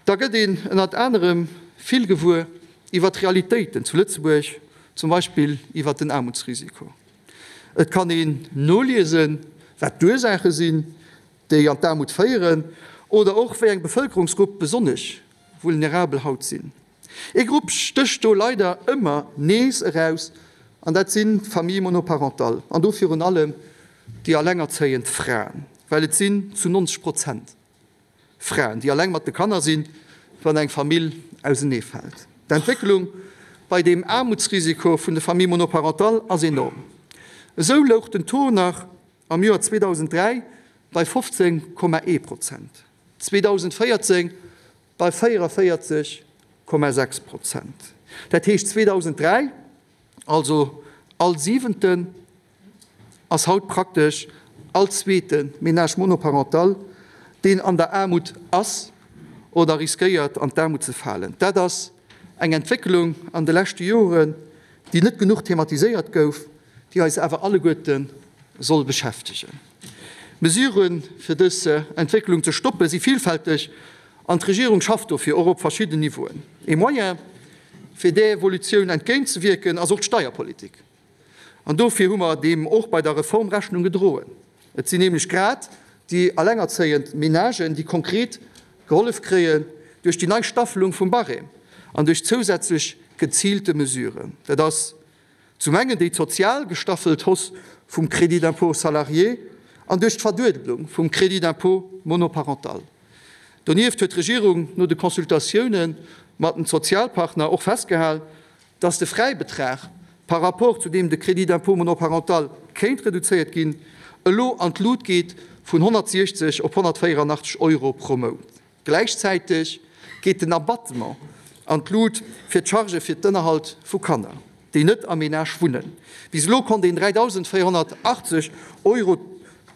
da gëtt een ënnert anerem vill gewuer iwwert d'Realitéiten zu Lëtzebuerg, zum Beispill iwwert den Aarmutsrisiko. Et kann een noliesen, wat d'Ursaache sinn, déi an d'Aarmut féieren, oder och wéi eng Bevëlkerungsgrupp besonnesch vulnerabel haut sinn. Ee Grupp stécht do leider ëmmer nees eraus, an dat sinn d'Familles monoparentales, an do virun allem déi allengerzéiend Fraen, well et sinn zu 90 Prozent Fraen, déi alleng mat de Kanner sinn, wann eng Famill auseneefält. D'Entwécklung bei deem Aarmutsrisiko vun de Familles monoparentales ass enorm. Esou louch den Taux nach am Joer 2003 bei 15,1 Prozent, 2014 bei 44,6 Prozent. Dat heescht 2003, also all Siwenten, ass haut praktesch all zweete Ménage monoparental, deen an der Aarmut ass oder riskéiert an d'Aarmut ze falen. Dat ass eng Entwécklung an de leschte Joren, déi net genuch thematiséiert gouf, déi eis awer alleguerte soll beschäftegen. D'Mesuren, fir dës Entwécklung ze stoppen, si villfälteg an d'Regierung schafft dofir och op verschidden Niveauen. Ee Moyen, fir där Evolutioun entgéintzewierken, ass och d'Steierpolitik. An dofir hu mer deem och bei der Reform Rechnung gedroen. Et sinn nämlech grad déi allengerzéiend Menagen, déi konkret gehollef kréien duerch déi nei Staffelung vum Barème an duerch zousätzlech geziilte Mesuren. Dat ass zum engen déi sozial gestaffelt Hausse vum Crédit d'impôt salarié an duerch d'Verduedelung vum Crédit d'impôt monoparental. Donieft huet d'Regierung no de Consultatioune mat den Sozialpartner och festgehal, dass de Fräibetrag, par rapport zu deem de Crédit d'impôt monoparental kéint reduzéiert ginn, elo an d'Lut geet vun 160 op 184 Euro pro Mount. Gläichzäiteg geet den Abattement an d'Lut fir d'Chargë fir d'Ënnerhalt vu Kanner, déi net am Menage wunnen. Bis elo konnt een 3.480 Euro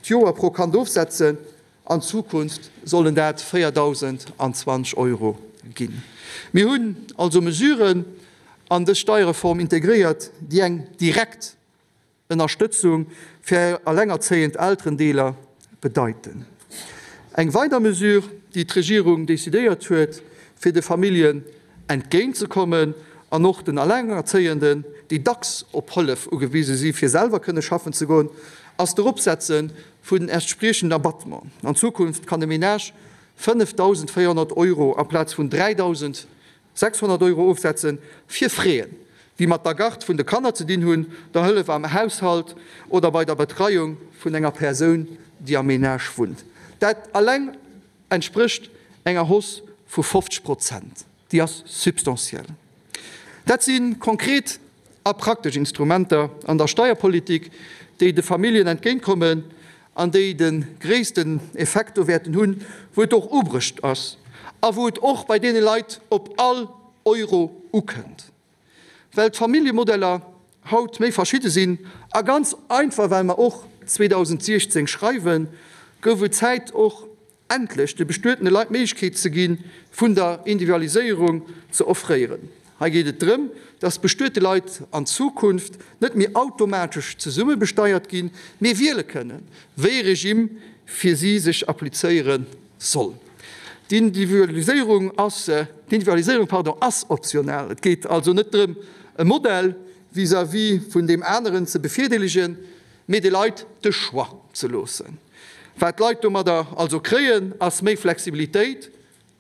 d'Joer pro Kand ofsetzen. An Zukunft sollen dat 4.020 Euro ginn. Mir hunn also Mesuren an dës Steierreform integréiert, déi eng direkt Ënnerstëtzung fir allengerzéiend Elterendeeler bedeiten. Eng weider Mesure, déi d'Regierung decidéiert huet, fir de Familljen entgéintzekommen an och den Allengerzéienden, déi dacks op Hëllef ugewise si fir selwer kënne schaffen ze goen, ass d'Eropsetze vun den entspriechenden Abattement. An Zukunft kann e Menage 5.400 Euro amplaz vun 3.600 Euro ofsetze fir Fräen, déi mat der Garde vun de Kanner ze dinn hunn, der Hëllef am Haushalt oder bei der Betreiung vun enger Persoun, déi am Menage wunnt. Dat alleng entsprécht enger Hausse vu 50 Prozent. Déi ass substantiell. Dat si konkret a praktesch Instrumenter an der Steierpolitik, déi de Familljen entgéintkommen an déi de gréissten Effekt do wäerten hunn, wou et och ubrecht ass a wou et och bei deene Leit op all Euro ukënnt. Well d'Familljemodeller haut méi verschidde sinn a ganz einfach well mer och 2016 schreiwen, gouf et Zäit och endlech de bestuetene Leit d'Méiglechkeet ze gi vun der Individualiséierung ze offréieren. Hei geet et drëm, dass bestuete Leit an Zukunft net méi automatesch zesumme besteiert ginn, mee wiele kënnen, wéi e Regime fir si sech applizéiere soll. D'Individualiséierung ass, d'Individualiséierung, pardon, ass optional. Et geet also net drëm, e Modell vis-à-vis vun deem aneren ze bevirdeelegen, mee de Leit de Choix ze loossen. Wat d'Leit domadder also kréien, ass méi Flexibilitéit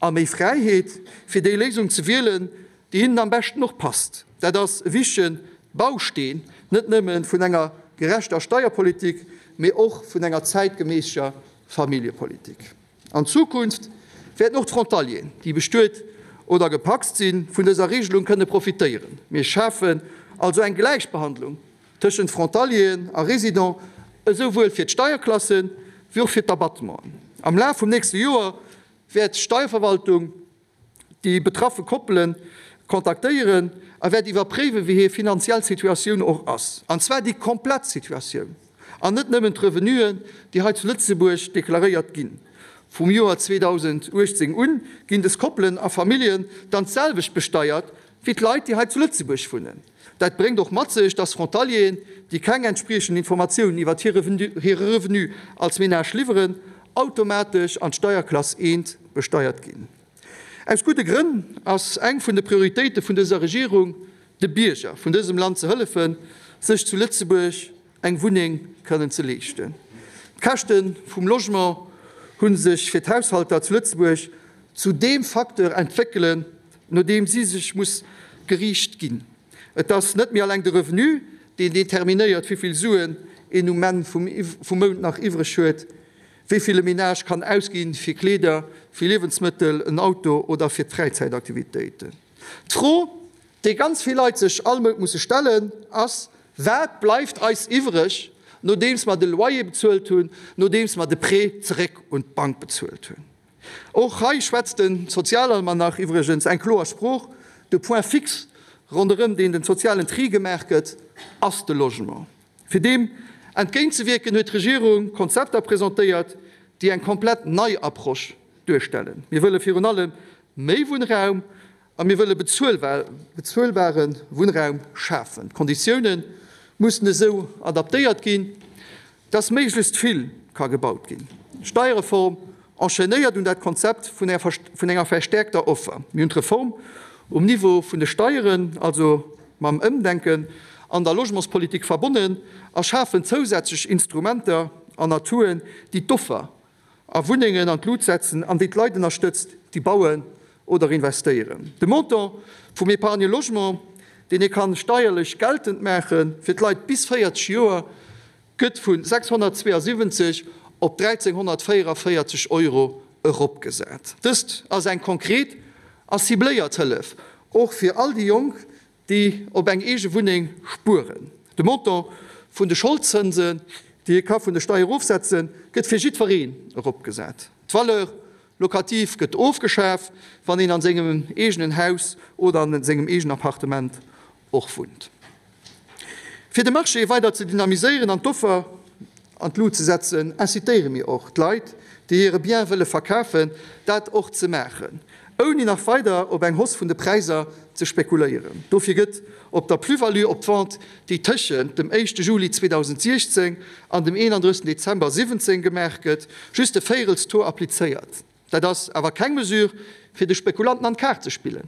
a méi Fräiheet, fir déi Léisung ze wielen, déi hinnen am beschten och passt. Dat ass e wichtege Bausteen, net nëmme vun enger gerechter Steierpolitik, mee och vun enger zäitgeméisser Familljepolitik. An Zukunft wäerten och d'Frontalieren, déi bestuet oder gepacst sinn, vun dëser Regelung kënne profitéieren. Mir schafen also eng Gläichbehandlung tëschent Frontalieren a Résidents. esou wuel fir d'Steierklassen, wéi och fir d'Abattementen. Am Laf vum nächste Joer wäert d'Steierverwaltung déi betraffe Koppele kontaktéieren a wäert iwwerpréiwen, wéi hir finanziell Situatioun och ass, an zwar déi komplett Situatioun an net nëmmen d'Revenuen, déi hei zu Lëtzebuerg deklaréiert ginn. Vum Joer 2018 un ginn des Koppelen a Familljen dann d'selwecht besteiert wéi d'Leit, déi hei zu Lëtzebuerg wunnen. Dat bréngt och mat sech, dass Frontalieren, déi keng entspriechend Informatiounen iwwert hire Revenu als Menage liwweren, automatesch an d'Steierklass I besteiert ginn. Aus gudde Grënn ass eng vun de Prioritéite vun dëser Regierung, de Bierger vun dësem Land ze hëllefen, sech zu Lëtzebuerg eng Wunneng kënnen ze leeschten. D'Käschte vum Logement hu sech fir d'Haushalter zu Lëtzebuerg zu deem Facteur entwéckelen, no deem si sech muss geriicht ginn. Et ass net méi alleng de Revenu, deen determinéiert, wéi vill Suen een um Enn vum Mount nach iwwreg huet, wéi vill e Menage kann ausginn fir Kleeder, fir Liewensmëttel, en Auto oder fir d'Fräizäitaktivitéiten. D'Fro, déi ganz vill Leit sech all Mount musse stellen, ass, Wat bleift eis iwwreg, nodeems mer de Loyer bezuelt hunn, nodeems mer de Prêt zeréck un d'Bank bezuelt hunn? Och hei schwätzt de Sozialalmanach iwwregens eng kloer Sprooch, De Point fixe, ronderëm deen den sozialen Tri gemaach gëtt, ass de Logement. Fir deem entgéintzewierken, huet d'Regierung Konzepter presentéiert, déi eng komplett nei Approche duerstellen. Mir wëlle virun allem méi Wunnraum a mir wëlle bezuelbare Wunnraum schafen. D'Konditioune mussen esou adaptéiert ginn, dass méiglechst vill ka gebaut ginn. D'Steierreform enchaînéiert un dat Konzept vun enger verstärkter Offer. Mir hunn d'Reform um Niveau vun de Steieren, also mam Ëmdenken an der Logementspolitik verbonnen a schafen zousätzlech Instrumenter an Atouen, déi d'Offer a Wunnengen an d'Lut setzen an déi d'Leit ënnerstëtzt, déi bauen oder investéieren. De Montant vum Épargne logement, deen ee kann steierlech geltend maache fir d'Leit bis 40 Joer, gëtt vu 672 op 1.344 Euro eropgesat. Dëst ass eng konkret a cibléiert Hëllef, och fir all déi Jonk, déi op eng eege Wunneng spueren. De Montant vun de Scholdzënsen, déi ee ka vun de Steier erofsetzen, gëtt fir jiddwereen eropgesat. D'Valeur locative gëtt ofgeschaf, wann een an sengem eegenen Haus oder an sengem eegenen Appartement och wunnt. Fir de Marché weider ze dynamiséieren an d'Offer an d'Lut ze setzen, incitéiere mir och d'Leit, déi hire Bien wëlle verkafen, dat och ze maachen, ouni nach weider op eng Hausse vun de Präisser ze spekuléieren. Dofir gëtt op der Plus-value op d'Vente, déi tëschent dem éischte Juli 2016 an dem 31 Dezember 17 gemaach gëtt, just e Véirelstaux applizéiert. Dat ass awer keng Mesure, fir de Spekulanten an d'Kaart ze spillen,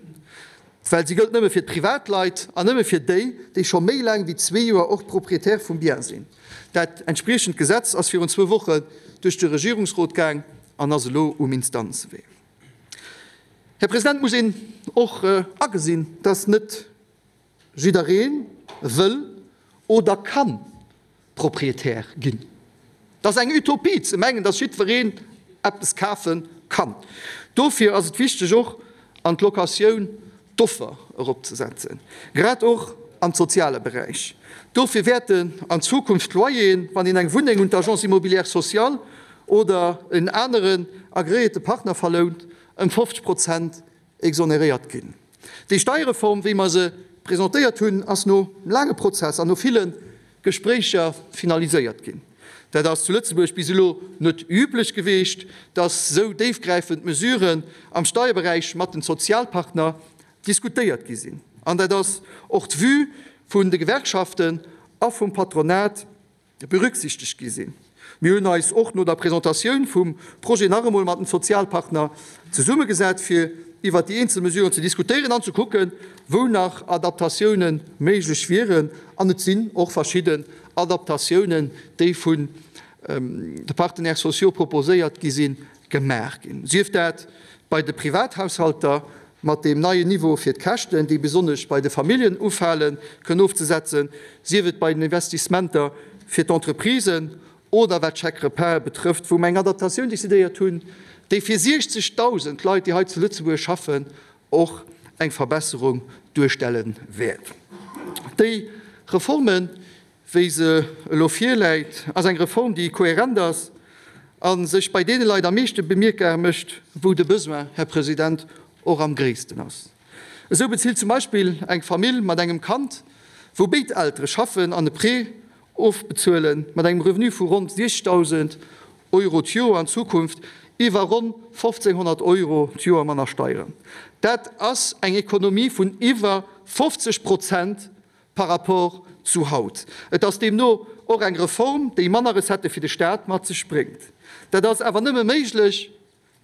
well si gëllt nëmme fir d'Privatleit an nëmme fir déi, déi scho méi laang wéi zwee Joer och Propriétaire vum Bien sinn. Dat entspriechend Gesetz ass virun zwou Wochen duerch de Regierungsrot gaang an ass elo um Instanzewee. Här President, muss een och agesinn, dass net Jidderee wëll oder kann Proprietär ginn. Et ass eng Utopie ze mengen, dass jiddwereen eppes kafe kann. Dofir ass et wichteg och an d'Locatioun d'Offer eropzesetzen, grad och am soziale Beräich. Dofir wäerten an Zukunft d'Loyeren, wann een eng Wunneng un d'Agence immobilière sociale oder en aneren agreéierte Partner verlount, ëm 50 Prozent exoneréiert ginn. Déi Steierreform, wéi mer se presentéiert hunn, ass no laange Prozess an no ville Gespréicher finaliséiert ginn. Dat ass zu Lëtzebuerg bis elo net üblech geweecht, dass esou déifgräifend Mesuren am Steierberäich mat den Sozialpartner diskutéiert gi sinn. An dat ass och d'Vue vun de Gewerkschaften a vum Patronat. Berücksichtegt gi sinn. Mir hunn eis och no der Presentatioun vum Projet nach emol mat den Sozialpartner zesummegesat, fir iwwert déi eenzel Mesuren ze diskutéieren an ze kucken, wou nach Adaptatioune méiglech wieren. An et sinn och verschidden Adaptatiounen, déi vun de Partenaires sociaux proposéiert gi sinn, gemaach ginn, sief dat bei de Privathaushalter mat deem neien Niveau fir d'Käschten, déi besonnesch bei de Familljen ufalen, kënnen ofzesetzen, sief et bei den Investissementer fir d'Entreprisen oder wat d'Chèques-repas betrëfft, wou mer eng Adaptatioun decidéiert hunn, déi fir 60.000 Leit, déi hei zu Lëtzebuerg schaffen, och eng Verbesserung duerstelle wäert. Déi Reformen. wéi se elo virläit, ass eng Reform, déi kohärent ass a sech bei deene Leit am meeschte bemierkbar mécht, wou de Besoin, Här President, och am gréissten ass. Esou bezilt zum Beispill eng Famill mat engem Kand, wou béid Eltere schaffen an e Prêt ofbezuelen, mat engem Revenu vu ronn 60.000 Euro d'Joer an Zukunft iwwer ronn 1.500 Euro d'Joer manner Steieren. Dat ass eng Ekonomie vun iwwer 50 Prozent par rapport zu haut. Et ass deemno och eng Reform, déi manner Recettë fir de Staat mat sech bréngt. Dat ass awer nëmme méiglech,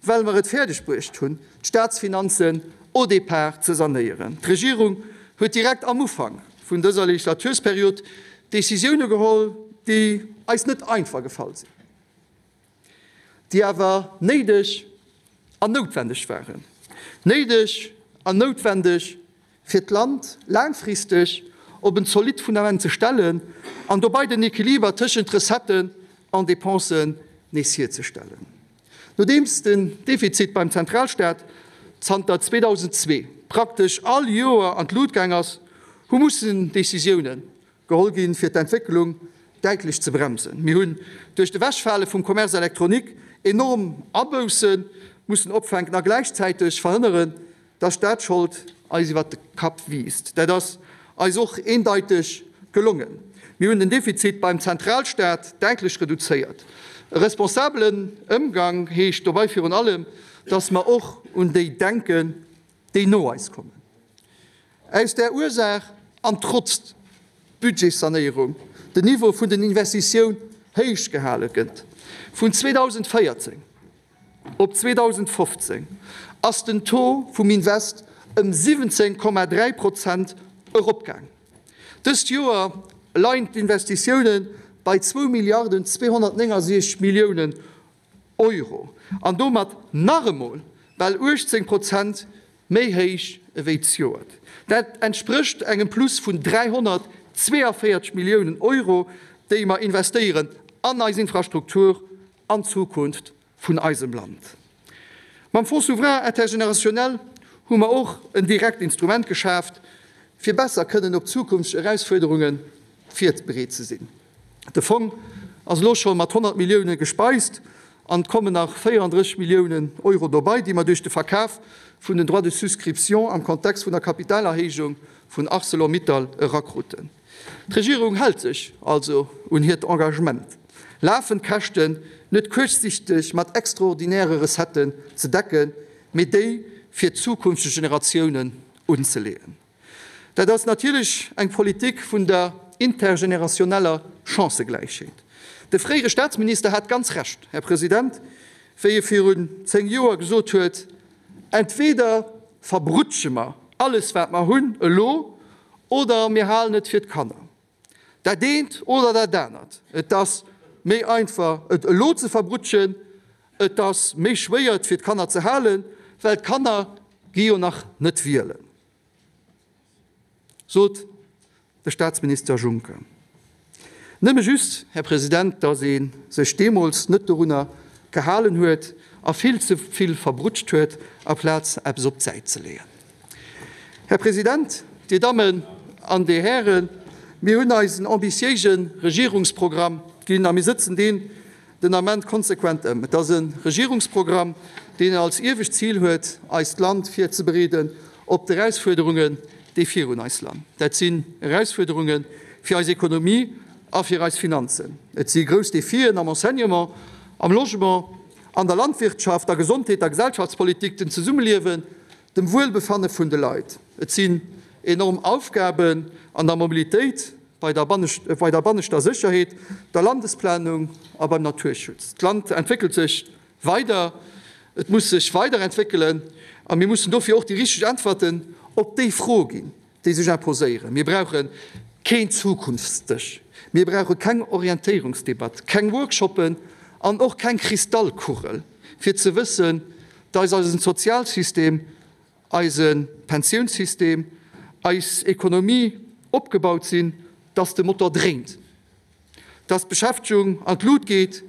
well mer et fäerdeg bruecht hunn, d'Staatsfinanzen au départ ze sanéieren. D'Regierung huet direkt am Ufank vun dëser Legislatursperiod Décisioune geholl, déi eis net einfach gefall sinn, déi awer néideg an noutwendeg waren. Néideg an noutwendeg, fir d'Land laangfristeg op en zolidd Fundament ze stellen an dobei den Equiliber tëschent Recetten an Dépensen nees hierzestellen. Nodeems den Defizit beim Zentralstaat zanter 2002 praktesch all Joer an d'Lut gaang ass, hu mussen Decisiounen geholl ginn, fir d'Entwécklung däitlech ze bremsen. Mir hunn duerch d'Ewechfale vum Commerce électronique enorm Abousse mussen opfänken a gläichzäiteg verhënneren, dass d'Staatsschold eis iwwert de Kapp wiisst. Dat ass eis och eendeiteg gelongen. Mir hunn den Defizit beim Zentralstaat däitlech reduzéiert. E responsabelen Ëmgang heescht dobei virun allem, dass mer och un déi denken, déi no eis kommen. Aus där Ursaach an trotz Budgetssanéierung den Niveau vun den Investitioun héich gehale gëtt, vun 2014 op 2015 ass den Taux vum Invest ëm 17,3 Prozent eropgaang. Dëst Joer leien d'Investitioune bei zwou Milliarden 269 Milliounen Euro an domat nach emol bal 18 Prozent méi héich ewéi zejoert. Dat entsprécht engem Plus vun 342 Milliounen Euro, déi mer investéieren an eis Infrastruktur, an d'Zukunft vun eisem Land. Mam Fonds souverain intergénérationnel hu mer och en direkt Instrument geschaaft, fir besser kënnen op zukünfteg Erausfuerderunge virbereet ze sinn. De Fong ass elo scho mat 100 Millioune gespeist an et kommen nach 34 Milliounen Euro dobei, déi mer duerch de Verkaf vun den Droits de souscription am Kontext vun der Kapitalerhéijung vun Arcelor-Mittal erakruten. D'Regierung hält sech also un hiert Engagement, lafend Käschten net kuerzsichteg mat extraordinäre Recetten ze decken, mee déi fir zukünfteg Generatiounen unzeleeën. Dat ass natierlech eng Politik vun der intergenerationeller Chancëgläichheet. De fréiere Staatsminister hat ganz Recht, Här President, wéi e virun 10 Joer gesot huet, Entweder verbrutsche mer alles wat mer hunn elo, oder mir halen et fir d'Kanner. Dat eent oder dat anert. Et ass méi einfach et elo ze verbrutschen, et ass méi schwéier et fir d'Kanner ze halen, well d'Kanner gi jo nach net wielen. Sot de Staatsminister Juncker. Nëmme just, Här President, datt ee sech deemools net dorunner gehalen huet a vill ze vill verbrutscht huet, aplaz eppes op d'Säit ze leeën. Här President, Dir Dammen an Dir Hären, mir hunn eis en ambitiéise Regierungsprogramm ginn a mir sëtzen deen den Ament konsequent ëm. Et ass e Regierungsprogramm, deen als iewescht Zil huet, eist Land virzebereeden op d'Erausfuerderungen, déi virun eis lan. Dat sinn Erausfuerderunge fir eis Ekonomie a fir eis Finanzen. Et si grouss Defien am Enseignement, am Logement, an der Landwirtschaft, der Gesondheet, der Gesellschaftspolitik, dem Zesummeliewen, dem Wuelbefanne vun de Leit. Et sinn enorm Aufgaben an der Mobilitéit, bei der banneschter Sécherheet, der Landesplanung a beim Naturschutz. D'Land entwéckelt sech weider, et muss sech weiderentwéckelen a mir mussen dofir och déi richteg Äntwerten op déi Froe ginn, déi sech imposéieren. Mir brauche keen Zukunftsdësch, mir brauche keng Orientéierungsdebatt, keng Workshoppen an och keng Kristallkugel, fir ze wëssen, dass eisen Sozialsystem, eise Pensiounssystem, eis Ekonomie opgebaut sinn, dass de Motor dréint, dass d'Beschäftegung an d'Lut geet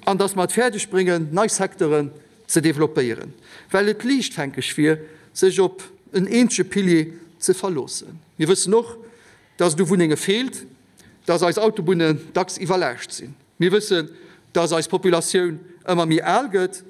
an dass mer et fäerdeg bréngen, nei Secteuren ze developpéieren, well et liichtfänkeg wier, sech op en eenzege Pilier ze verloossen. Mir wëssen och, dass et u Wunnenge feelt. dass eis Autobunnen dacks iwwerlaascht sinn. Mir wëssen, dass eis Populatioun ëmmer méi al gëtt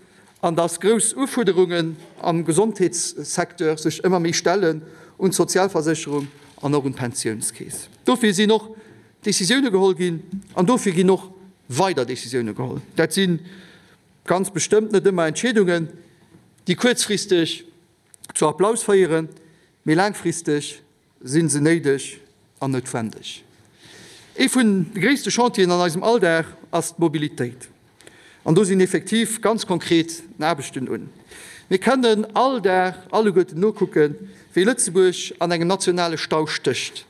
an dass grouss Ufuerderungen am Gesondheetssecteur sech ëmmer méi stellen un d'Sozialversécherung an och un d'Pensiounskeess. Dofir sinn och Décisioune geholl ginn an dofir ginn och weider Décisioune geholl. Dat si ganz bestëmmt net ëmmer Entscheedungen, déi kuerzfristeg zu Applaus féieren, mee laangfristeg si se néideg an noutwendeg. Ee vun de gréisste Chantieren an eisem Alldag ass d'Mobilitéit. An do sinn effektiv ganz konkret Aarbechten un. Mir kënnen all Dag alleguerten nokucken, wéi Lëtzebuerg an engem nationale Stau stécht.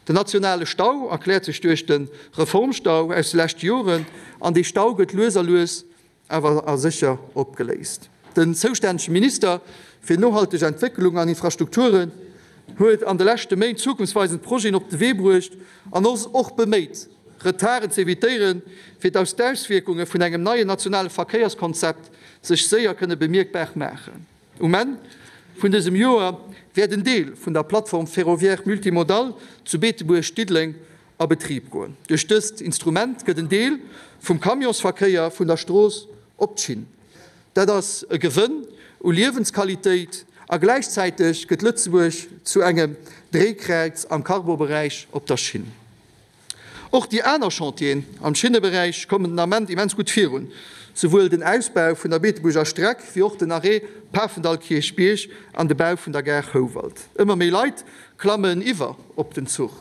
Den nationale Stau erkläert sech duerch de Reformstau aus de leschte Joren an dee Stau gëtt lues a lues awer a sécher opgeléist. Den zoustännege Minister fir nohalteg Entwécklung an Infrastrukturen huet an de leschte Méint zukunftsweisend Projeten op de Wee bruecht an ass och beméit, Retarden ze evitéieren, fir datt d'Auswierkunge vun engem neien nationale Verkéierskonzept sech séier kënne bemierkbar maachen. Um Enn vun dësem Joer wäert en Deel vun der Plateforme ferroviaire multimodale zu Beetebuerg-Diddeleng a Betrib goen. Duerch dëst Instrument gëtt en Deel vum Camionsverkéier vun der Strooss op d'Schinn. Dat ass e Gewënn u Liewensqualitéit a gläichzäiteg gëtt Lëtzebuerg zu engem Dréikräiz am Cargoberäich op der Schinn. Och déi aner Chantieren am Schinneberäich kommen den Ament immens gutt virun, souwuel den Ausbau vun der Beetebuerger Streck wéi och den Arrêt Pafendall-Kierchbierg an de Bau vun der Gare Houwald. Ëmmer méi Leit klammen iwwer op den Zuch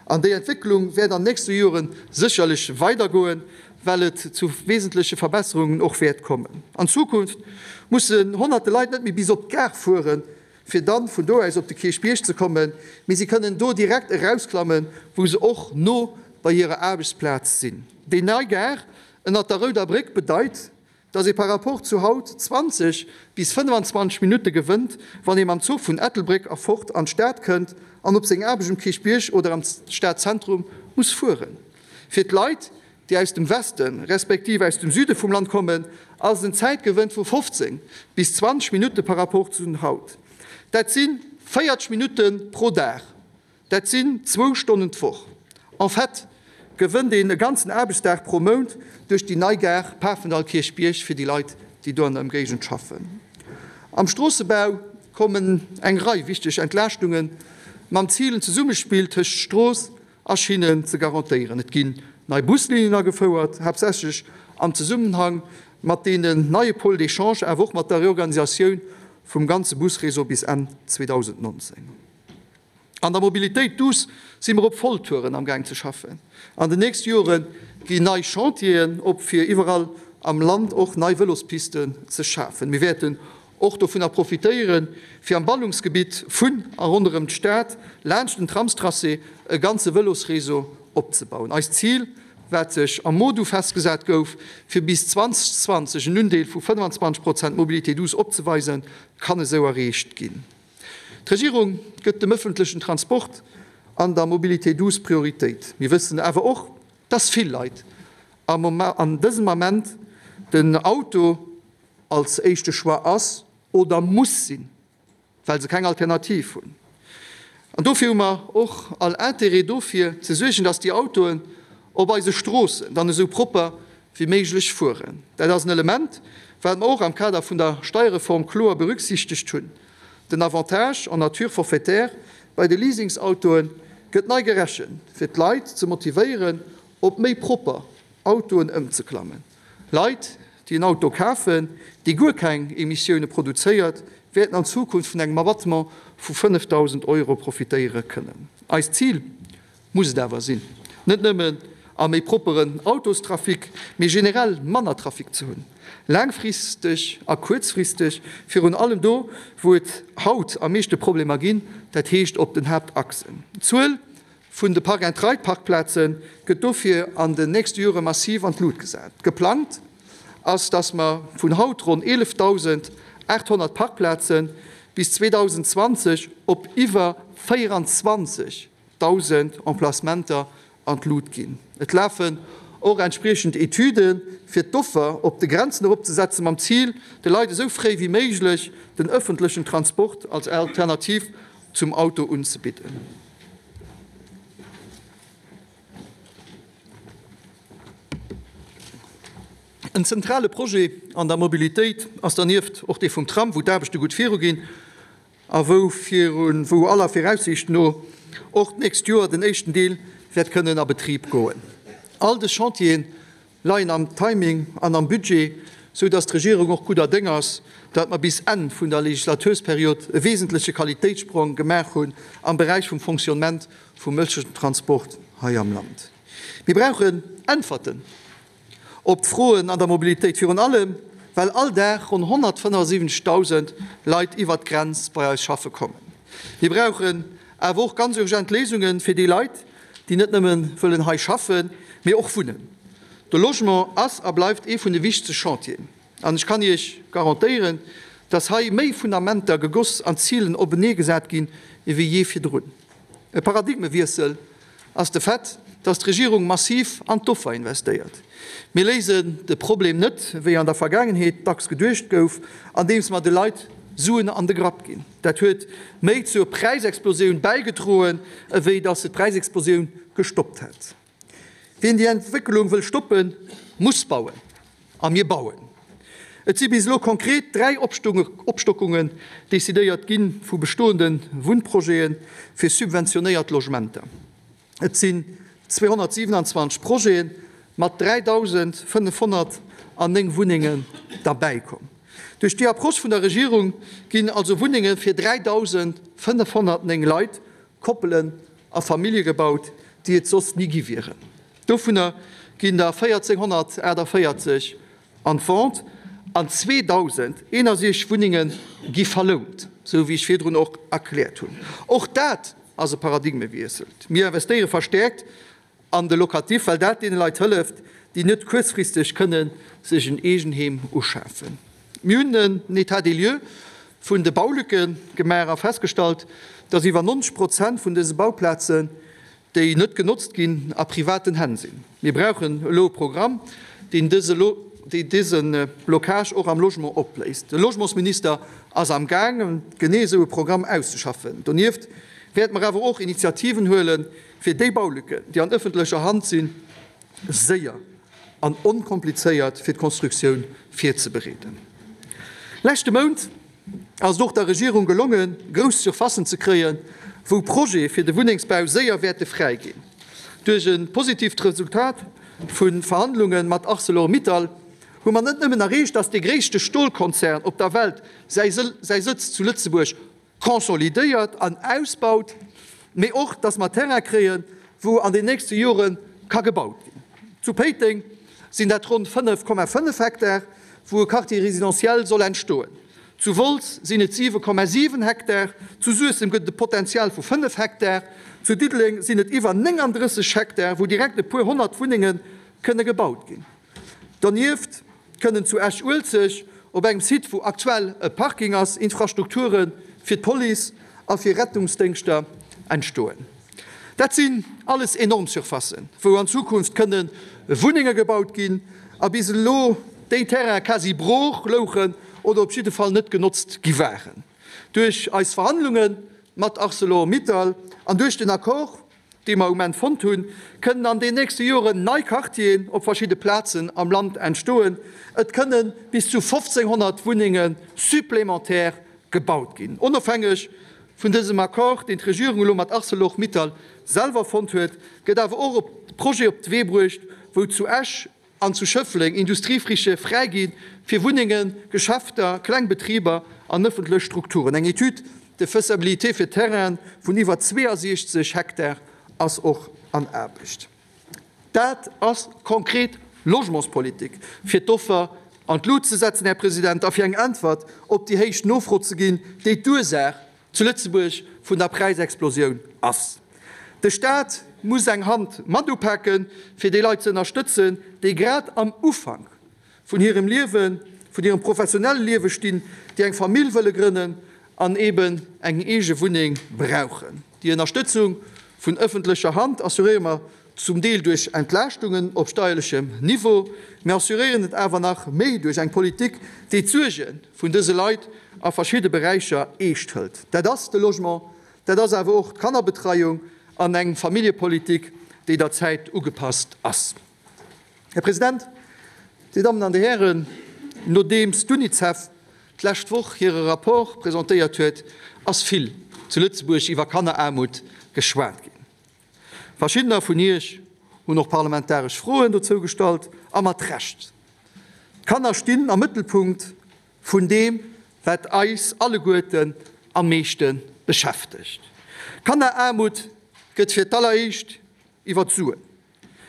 an déi Entwécklung wäert an nächste Jore sécherlech weidergoen, well et zu wesentleche Verbesserungen och wäert kommen. An Zukunft mussen honnerte Leit net méi bis op d'Gare fueren, fir dann vun do aus op de Kierchbierg ze kommen, mee si kënnen do direkt erausklammen, wou se och no bei hirer Aarbechtsplaz sinn. Déi nei Gare ënnert der Rouder Bréck bedeit, dass ee par rapport zu haut 20 bis 25 Minutte gewënnt, wann ee mam Zuch vun Ettelbréck erfort an d'Stad kënnt an op seng Aarbecht um Kierchbierg oder am Stadzentrum muss fueren. Fir d'Leit, déi aus dem Westen, respektiv aus dem Süde vum Land kommen, ass et en Zäitgewënn vu 15 bis 20 Minutte par rapport zu haut. Dat si 40 Minutte pro Dag, dat sinn zwou Stonnen d'Woch. En fait gewënnt een e ganzen Aarbechtsdag pro Mount duerch déi nei Gare Pafendall-Kierchbierg fir déi Leit, déi do an der Ëmgéigend schaffen. Am Stroossebau kommen eng Rei wichteg Entlaaschtunge mam Zil, en Zesummespill tëscht Strooss a Schinnen ze garantéieren. Et ginn nei Buslinien agefouert, haaptsächlech am Zesummenhang mat deenen neie Pôles d'échange, awer och mat der Reorganisatioun vum ganze Busréseau bis Enn 2019. An der Mobilitéit douce si mer op Volltouren am Gaang ze schaffen. An den nächste Jore ginn nei Chantieren op, fir iwwerall am Land och nei Vëlospisten ze schafen. Mir wäerten och dovunner profitéieren, fir am Ballungsgebitt vun a ronderëm d'Stad laanscht den Tramstracé e ganze Vëlosréseau opzebauen. Eist Zil, wat sech am MoDu festgesat gouf, fir bis 2020 en Undeel vu 25 Prozent Mobilité douce opzeweisen, kann esou erreecht ginn. D'Regierung gëtt dem ëffentlechen Transport an der Mobilité douce Prioritéit. Mir wëssen awer och, dass vill Leit an dësem Ament den Auto als éischte Choix ass oder muss sinn, well se keng Alternativ hunn. An dofir hu mer och all Intérêt dofir ze suergen, dass déi Autoen op eise Stroossen dann esou propper wéi méiglech fueren. Dat ass en Element, wat mer och am Kader vun der Steierreform kloer berücksichtegt hunn. Den Avantage en nature forfaitaire bei de Leasingsautoe gëtt nei gerechent, fir d'Leit ze motivéieren, op méi propper Autoen ëmzeklammen. Leit, déi en Auto kafen, dee guer keng Emissioune produzéiert, wäerten an Zukunft vun engem Abattement vu 5.000 Euro profitéiere kënnen. Eist Zil muss et awer sinn, net nëmmen a méi propperen Autostrafic, mee generell manner Trafic ze hunn, laangfristeg a kuerzfristeg, virun allem do, wou et haut am meeschte Problemer ginn, dat heescht op den Haaptachsen. D'Zuel vun de Park-and-Ride-Parkplaze gëtt dofir an den nächste Jore massiv an d'Lut gesat. Geplangt ass, dass mer vun haut ronn 11.800 Parkplaze bis 2020 op iwwer 24.000 Emplacementer an d'Lut ginn. Et lafen och entspriechend Etüden, fir d'Offer op de Grenzen eropzesetzen, mam Zil, de Leit esou fréi wéi méiglech den ëffentlechen Transport als Alternativ zum Auto unzebidden. En zentrale Projet an der Mobilitéit ass dernieft och dee vum Tram, wou d'Aarbechte gutt viruginn a wou virun, wou aller Viraussiicht no och d'nächst Joer den éischten Deel wäert kënnen a Betrib goen. All dës Chantiere leien am Timing an am Budget, sou dass d'Regierung och gudder Déng ass, dat mer bis Enn vun der Legislatursperiod e wesentleche Qualitéitssprong gemaach hunn am Beräich vum Fonctionnement vum ëffentlechen Transport hei am Land. Mir brauchen Äntwerten op d'Froen an der Mobilitéit, virun allem well all Dag ronn 175.000 Leit iwwert d'Grenz bei eis schaffe kommen. Mir brauchen awer och ganz urgent Léisunge fir déi Leit, déi net nëmme wëllen hei schaffen, mee och wunnen. De Logement ass a bleift ee vun de wichtegste Chantieren. An ech kann Iech garantéieren, dass hei méi Fundamenter gegoss an Zilen openee gesat ginn ewéi jee virdrun. E Paradigmewiessel ass de Fait, dass d'Regierung massiv an d'Offer investéiert. Mir léisen de Problem net, wéi an der Vergaangenheet dacks geduecht gouf, andeems mer de Leit Suen an de Grapp ginn. Dat huet méi zur Präisexplosioun bäigedroen, ewéi dass se d'Präisexplosioun gestoppt hätt. Wien déi Entwécklung wëll stoppen, muss bauen. A mir bauen. Et si bis elo konkret 3 Opstockungen decidéiert gi vu bestoende Wunnprojete fir subventionéiert Logementer. Et sinn 227 Projete mat 3.509 Wunnengen derbäikomm. Duerch déi Approche vun der Regierung ginn also Wunnenge fir 3.509 Leit, Koppelen a Famillje gebaut, déi et soss ni gi wieren. Dovunner ginn der 1.448 an d'Vente an 2.061 Wunnenge gi verlount, esou wéi ech virdrun och erkläert hunn. Och dat ass e Paradigmewiessel. Mir investéiere verstäerkt an de Locatif, well dat deene Leit hëlleft, déi net kuerzfristeg kënne sech en Eegenheem uschafen. Mir hunn en État des lieux vun de Baulücke gemaach a festgestallt, dass iwwer 90 Prozent vun dëse Bauplazen, déi net genotzt ginn, a privaten Hänn sinn. Mir brauchen elo e Programm, deen dëse Blocage och am Logement opléist. De Logementsminister ass am gaangen, genee esou e Programm auszeschaffen. Donieft wäerte mer awer och Initiativen huelen, fir déi Baulücken, déi an ëffentlecher Hand sinn, séier an onkomplizéiert fir d'Konstruktioun virzebereeden. Leschte Mount ass et och der Regierung gelongen, grouss Surfacen ze kréien, wou Projete fir de Wunnengsbau séier wäerte fräi ginn. Duerch e positiivt Resultat vu Verhandlunge mat Arcelor-Mittal hu mer net nëmmen erreecht, datt dee gréisste Stolkonzern op der Welt säi Sëtz zu Lëtzebuerg consolidéiert an ausbaut, mee och, dass mer Terrain kréien, wou an den nächste Jore ka gebaut ginn. Zu Péiteng sinn dat ronn 5,5 Hektar, wou e Quartier résidentiel soll entstoen. Zu Wolz sinn et 7,7 Hektar, zu Suessem gëtt et e Potenzial vu 5 Hektar, zu Diddeleng sinn et iwwer 39 Hektar, wou direkt e puer 100 Wunnenge kënne gebaut ginn. Donieft kënnen zu Esch-Uelzecht, op engem Site wou aktuell e Parking ass, Infrastrukture fir d'Police a fir Rettungsdéngschter entstoen. Dat sinn alles enorm Surfacen, wou an Zukunft kënne Wunnenge gebaut ginn a bis elo déi Terraine quasi brooch louchen oder op jidde Fall net genotzt gi waren. Duerch eis Verhandlunge mat Arcelor-Mittal an duerch den Accord, déi mer um Enn fonnt hunn, kënnen an den nächste Joren nei Quartieren op verschidde Plazen am Land entstoen. Et kënne bis zu 1.500 Wunnenge supplémentaire gebaut ginn. Onofhängeg vun dësem Accord, deen d'Regierung elo mat Arcelor-Mittal selwer fonnt huet, gëtt awer och e Projet op de Wee bruecht, wou zu Esch an zu Schëffleng Industriefrichë fräi gi fir Wunnengen, Geschäfter, kleng Betriber an ëffentlech Strukturen. Eng Étude de faisabilité fir Terraine vun iwwer 62 Hektar ass och an Aarbecht. Dat ass konkret Logementspolitik, fir d'Offer an d'Lut ze setzen, Här President, a fir eng Äntwert op déi héich Nofro ze ginn, déi d'Ursaach zu Lëtzebuerg vun der Präisexplosioun ass. De Staat muss eng Hand mat upaken, fir déi Leit ze ënnerstëtzen, déi grad am Ufank vun hirem Liewen, vun hirem professionelle Liewe stinn, déi eng Famill wëlle grënnen an eeben eng eege Wunneng brauchen. Déi Ënnerstëtzung vun ëffentlecher Hand assuréiere mer zum Deel duerch Entlaaschtungen op steierlechem Niveau. Mir assuréieren et awer nach méi duerch eng Politik, déi d'Suerge vun dëse Leit a verschidde Beräicher eescht hëlt. Dat ass de Logement, dat ass awer och d'Kannerbetreiung an eng Familljepolitik, déi der Zäit ugepasst ass. Här President, Dir Dammen an Dir Hären, nodeems d'UNICEF d'lescht Woch hire Rapport presentéiert huet, ass vill zu Lëtzebuerg iwwer Kanneraarmut geschwat ginn. Verschiddener vun Iech hunn och parlamentaresch Froen dozou gestallt, a mat Recht. D'Kanner stinn am Mëttelpunkt vun deem, wat eis alleguerten am meeschte beschäftegt. Kanneraarmut gëtt fir d'alleréischt iwwer d'Suen,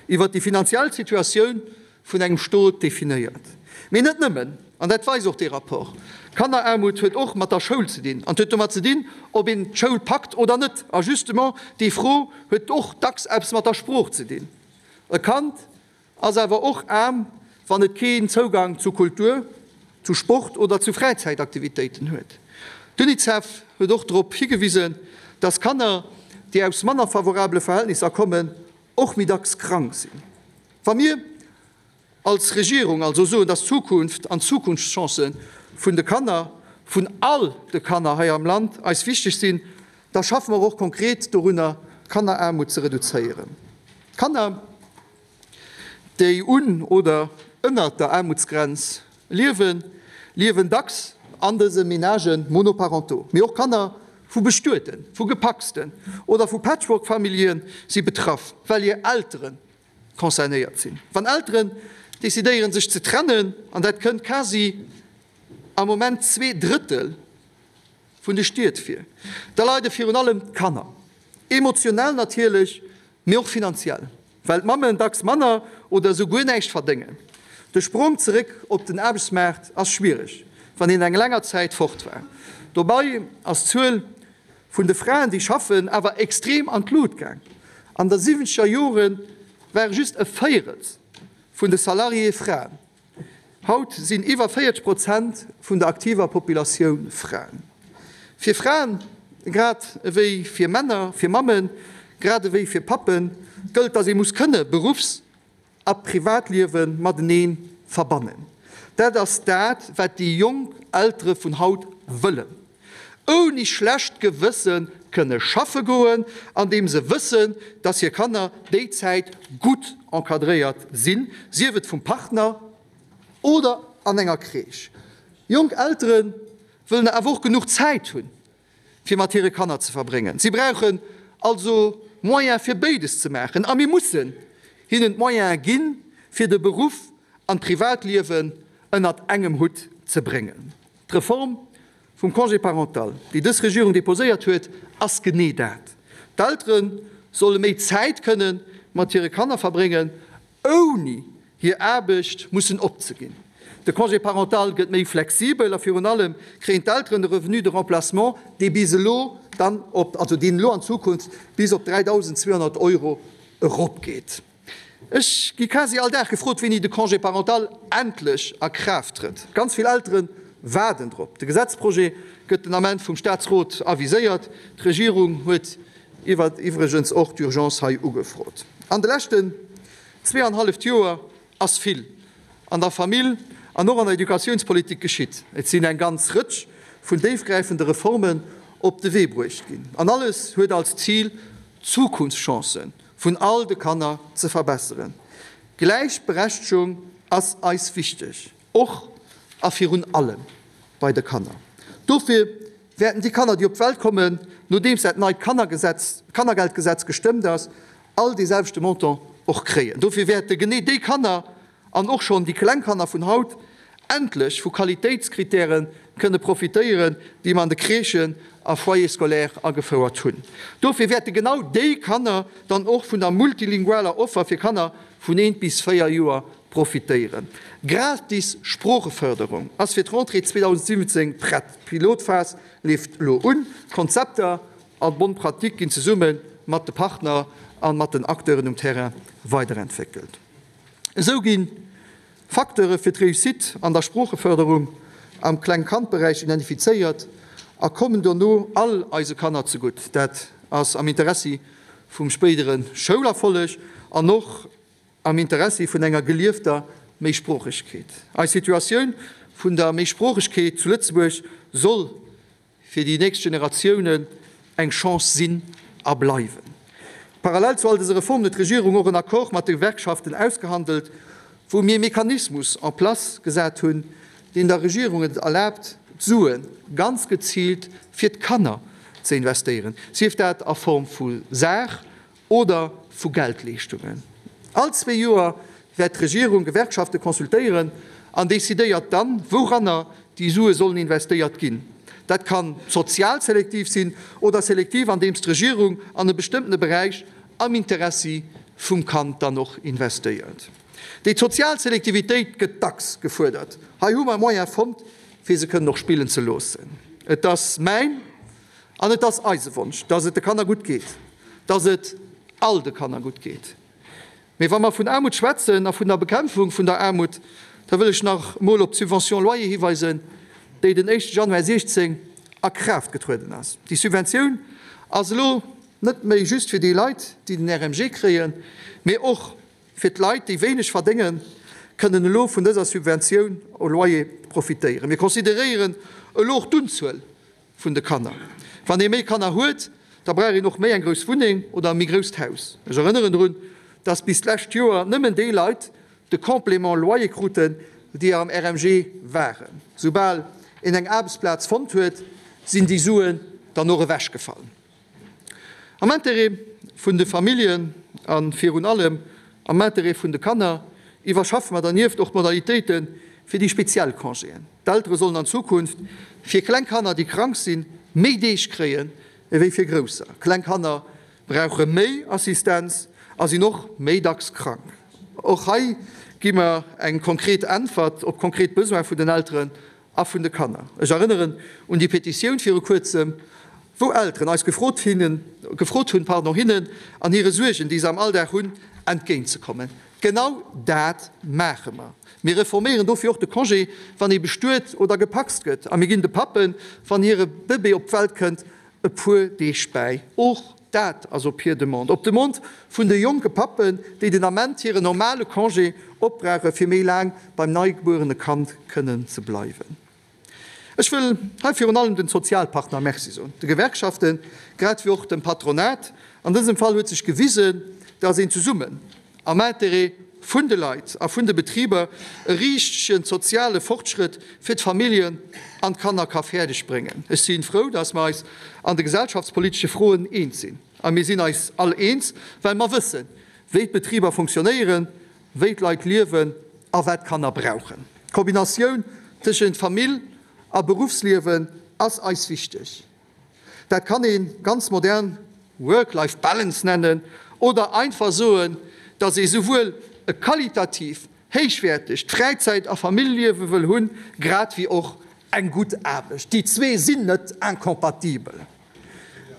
iwwer déi finanziell Situatioun vun engem Stot definéiert. Mee net nëmmen, an dat weist och dee Rapport. Kanneraarmut huet och mat der Schoul ze dinn an huet domat ze dinn, ob een d'Schoul packt oder net. A justement déi Fro huet och dacks eppes mat der Sprooch ze dinn. E Kand ass awer och aarm, wann et keen Zougang zu Kultur, zu Sport oder zu Fräizäitaktivitéiten huet. D'UNICEF huet och drop higewisen, dass Kanner, déi aus manner favorabele Verhältnisser kommen, och méi dacks krank sinn. Wa mir als Regierung also soen, dass d'Zukunft an d'Zukunftschancë vun de Kanner, vun all de Kanner hei am Land eis wichteg sinn, da schaffe mer och konkret dorunner, d'Kanneraarmut ze reduzéieren. Kanner, déi un oder ënnert der Aarmutsgrenz liewen, liewen dacks an dëse Ménagen monoparentaux. Mee och Kanner vu Bestueten, vu Gepacsten oder vu Patchwork-Famillje si betraff, well hir Eltere concernéiert sinn. Wann Elteren decidéieren, sech ze trennen, an dat kënnt quasi am Moment 2/3 vun de Stied vir, da leide virun allem d'Kanner. Emotionell natierlech, mee och finanziell, well d'Mammen dacks manner oder esou guer näischt verdéngen. De Sprong zeréck op den Aarbechtsmaart ass schwiereg, wann een eng länger Zäit fort war. Dobei ass d'Zuel vun de Fraen, déi schaffen, awer extrem an d'Lut gaang. An der siwwenzeger Jore ware just e Véierels vun de Salariéë Fraen. Haut sinn iwwer 40 Prozent vun der aktiver Populatioun Fraen. Fir Fraen, grad ewéi fir Männer, fir Mammen, grad ewéi fir Pappen, gëllt, dass ee muss kënne Beruffs a Privatliewe matenee verbannen. Dat ass dat, wat déi jonk Eltere vun haut wëllen. Ouni schlecht Gewësse kënne schaffe goen, andeem se wëssen, dass hir Kanner déi Zäit gutt encadréiert sinn, sief et vum Partner oder an enger Crèche. Jonk Eltere wëllen awer och genuch Zäit hunn, fir mat hire Kanner ze verbréngen. Si brauchen also Moyen fir béides ze maachen a mir mussen hinnen d'Moyene ginn, fir de Beruff an d'Privatliewen ënnert engem Hutt ze bréngen. D'Reform vum Congé parental, déi dës Regierung deposéiert huet, ass genee dat. D'Eltere solle méi Zäit kënne mat hire Kanner verbréngen, ouni hir Aarbecht mussen opzeginn. De Congé parental gëtt méi flexibel a virun allem kréien d'Elteren e Revenu de remplacement, dee bis elo dann op, also deen elo an Zukunft bis op 3.200 Euro eropgeet. Ech gi quasi all Dag gefrot, wéini de Congé parental endlech a Kraaft trëtt. Ganz vill Eltere waarden drop. De Gesetzprojet gëtt den Ament vum Staatsrot aviséiert. D'Regierung huet iwwregens och d'Urgence hei ugefrot. An de leschten zweeanhalleft Joer ass vill an der Famill an och an der Educatiounspolitik geschitt. Et sinn eng ganz Rëtsch vun déifgräifende Reformen op de Wee bruecht ginn. An alles huet als Zil, d'Zukunftschancen vun all de Kanner ze verbesseren. Gläichberechtegung ass eis wichteg, och a virun allem bei de Kanner. Dofir wäerten déi Kanner, déi op d'Welt kommen, nodeems dat neit Kannergesetz, Kannergeldgesetz gestëmmt ass, all dee selwechte Montant och kréien. Dofir wäerte genee déi Kanner an och schonn déi kleng Kanner vun haut endlech vu Qualitéitskritäre kënne profitéieren, déi mer an de Crèchen a Foyers scolaires agefouert hunn. Dofir wäerte genau déi Kanner dann och vun der multilingualer Offer fir Kanner vun eent bis 4 Joer profitéieren. Gratis Sproochefërderung ass fir d'Rentrée 2017 prett. D'Pilotphas leeft elo un. D'Konzepter an d'Bonnes pratiques ginn zesumme mat de Partner a mat den Acteuren um Terrain weiderentwéckelt. Esou gi Facteure fir d'Réussite an der Sproochefërderung am Kleng-Kand-Beräich identifizéiert a kommen dono all eise Kanner zegutt. Dat ass am Interessi vum spéidere Schoulerfolleg an och am Interessi vun enger geliefter Méisproochegkeet. Eis Situatioun vun der Méisproochegkeet zu Lëtzebuerg soll fir déi nächst Generatiounen eng Chance sinn a bleiwen. Parallel zu all dëse Reformen huet d'Regierung och en Accord mat de Gewerkschaften ausgehandelt, wou. wou mir e Mechanismus en place gesat hunn, deen der Regierung et erlaabt, d'Sue ganz geziilt fir d'Kanner ze investéieren, sief dat a Form vu Saach oder vu Geldleeschtungen. All zwee Joer wäert d'Regierung Gewerkschafte consultéieren an decidéiert dann, wouranner déi Sue sollen investéiert ginn. Dat kann sozial selektiv sinn oder selektiv, andeems d'Regierung an e bestëmmtene Beräich am Interessi vum Kand dann och investéiert. Déi sozial Selektivitéit gëtt dacks gefuerdert. Hei hu mer e Moyen fonnt, fir se kënnen och spillen ze loossen. Et ass mäin an et ass eise Wonsch, dass et de Kanner gutt geet, dass et all de Kanner gutt geet. Mee wa mer vun Aarmut schwätzen a vun der Bekämpfung vun der Aarmut, da wëll ech nach emol op d'Subvention loyer hiweisen, déi den éischte Januar 16 a Kraaft getrueden ass. Déi Subventioun ass elo net méi just fir déi Leit, déi den RMG kréien, mee och fir d'Leit, déi wéineg verdéngen, kënnen elo vun dëser Subventioun au loyer profitéieren. Mir consideréieren elo och d'Unzuel vun de Kanner. Wann ee méi Kanner huet, da brauch een och méi eng grouss Wunneng oder e méi grousst Haus. Ech erënneren drun, dass bis d'lescht Joer nëmmen déi Leit de Complément loyer kruten, déi am RMG waren. Soubal een eng Aarbechtsplaz fonnt huet, sinn déi Suen dann och ewechgefall. Am Interêt vun de Familljen a virun allem am Interêt vun de Kanner iwwerschaffe mer dernieft och d'Modalitéite fir déi speziell Congéen. D'Eltere sollen an Zukunft fir kleng Kanner, déi krank sinn, méi Deeg kréien ewéi fir grousser. Kleng Kanner brauche méi Assistenz a sinn och méi dacks krank. Och hei gi mer eng konkret Äntwert op konkret Besoin vun den Elteren a vun de Kanner. Ech erënneren un déi Petitioun viru kuerzem, wou Elteren eis gefrot hinnen, gefrot hunn, pardon, hinnen an hire Suergen, déi se am Alldag hunn, entgéintzekommen. Genau dat maache mer. Mir reforméieren dofir och de Congé, wann ee bestuet oder gepacst gëtt, a mir ginn de Pappen, wann hire Bëbee op d'Welt kënnt, e puer Deeg bäi. Och dat ass op hir Demande, op Demande vun de jonke Pappen, déi den Ament hiren normale Congé opbrauche fir méi laang beim neigebuerene Kand kënnen ze bleiwen. Ech wëll hei virun allem den Sozialpartner Merci soen, de Gewerkschaften, grad wéi och dem Patronat. An dësem Fall huet sech gewisen, dass een zesummen am Intérêt vun de Leit a vun de Betriber e richtegen soziale Fortschrëtt fir d'Familljen an d'Kanner ka fäerdeg bréngen. Ech si frou, dass mer eis an de gesellschaftspolitesche Froen eens sinn. A mir sinn eis all eens, well mer wëssen, wéi d'Betriber funktionéieren, wéi d'Leit liewen a wat d'Kanner brauchen. D'Kombinatioun tëschent Famill a Beruffsliewen ass eis wichteg. Dat kann ee ganz modern Work-Life Balance nennen oder einfach soen, dass ee souwuel e qualitativ héichwäertegt Fräizäit a Familljeliewe wëll hunn, grad wéi och eng gutt Aarbecht. Déi zwee sinn net incompatibel.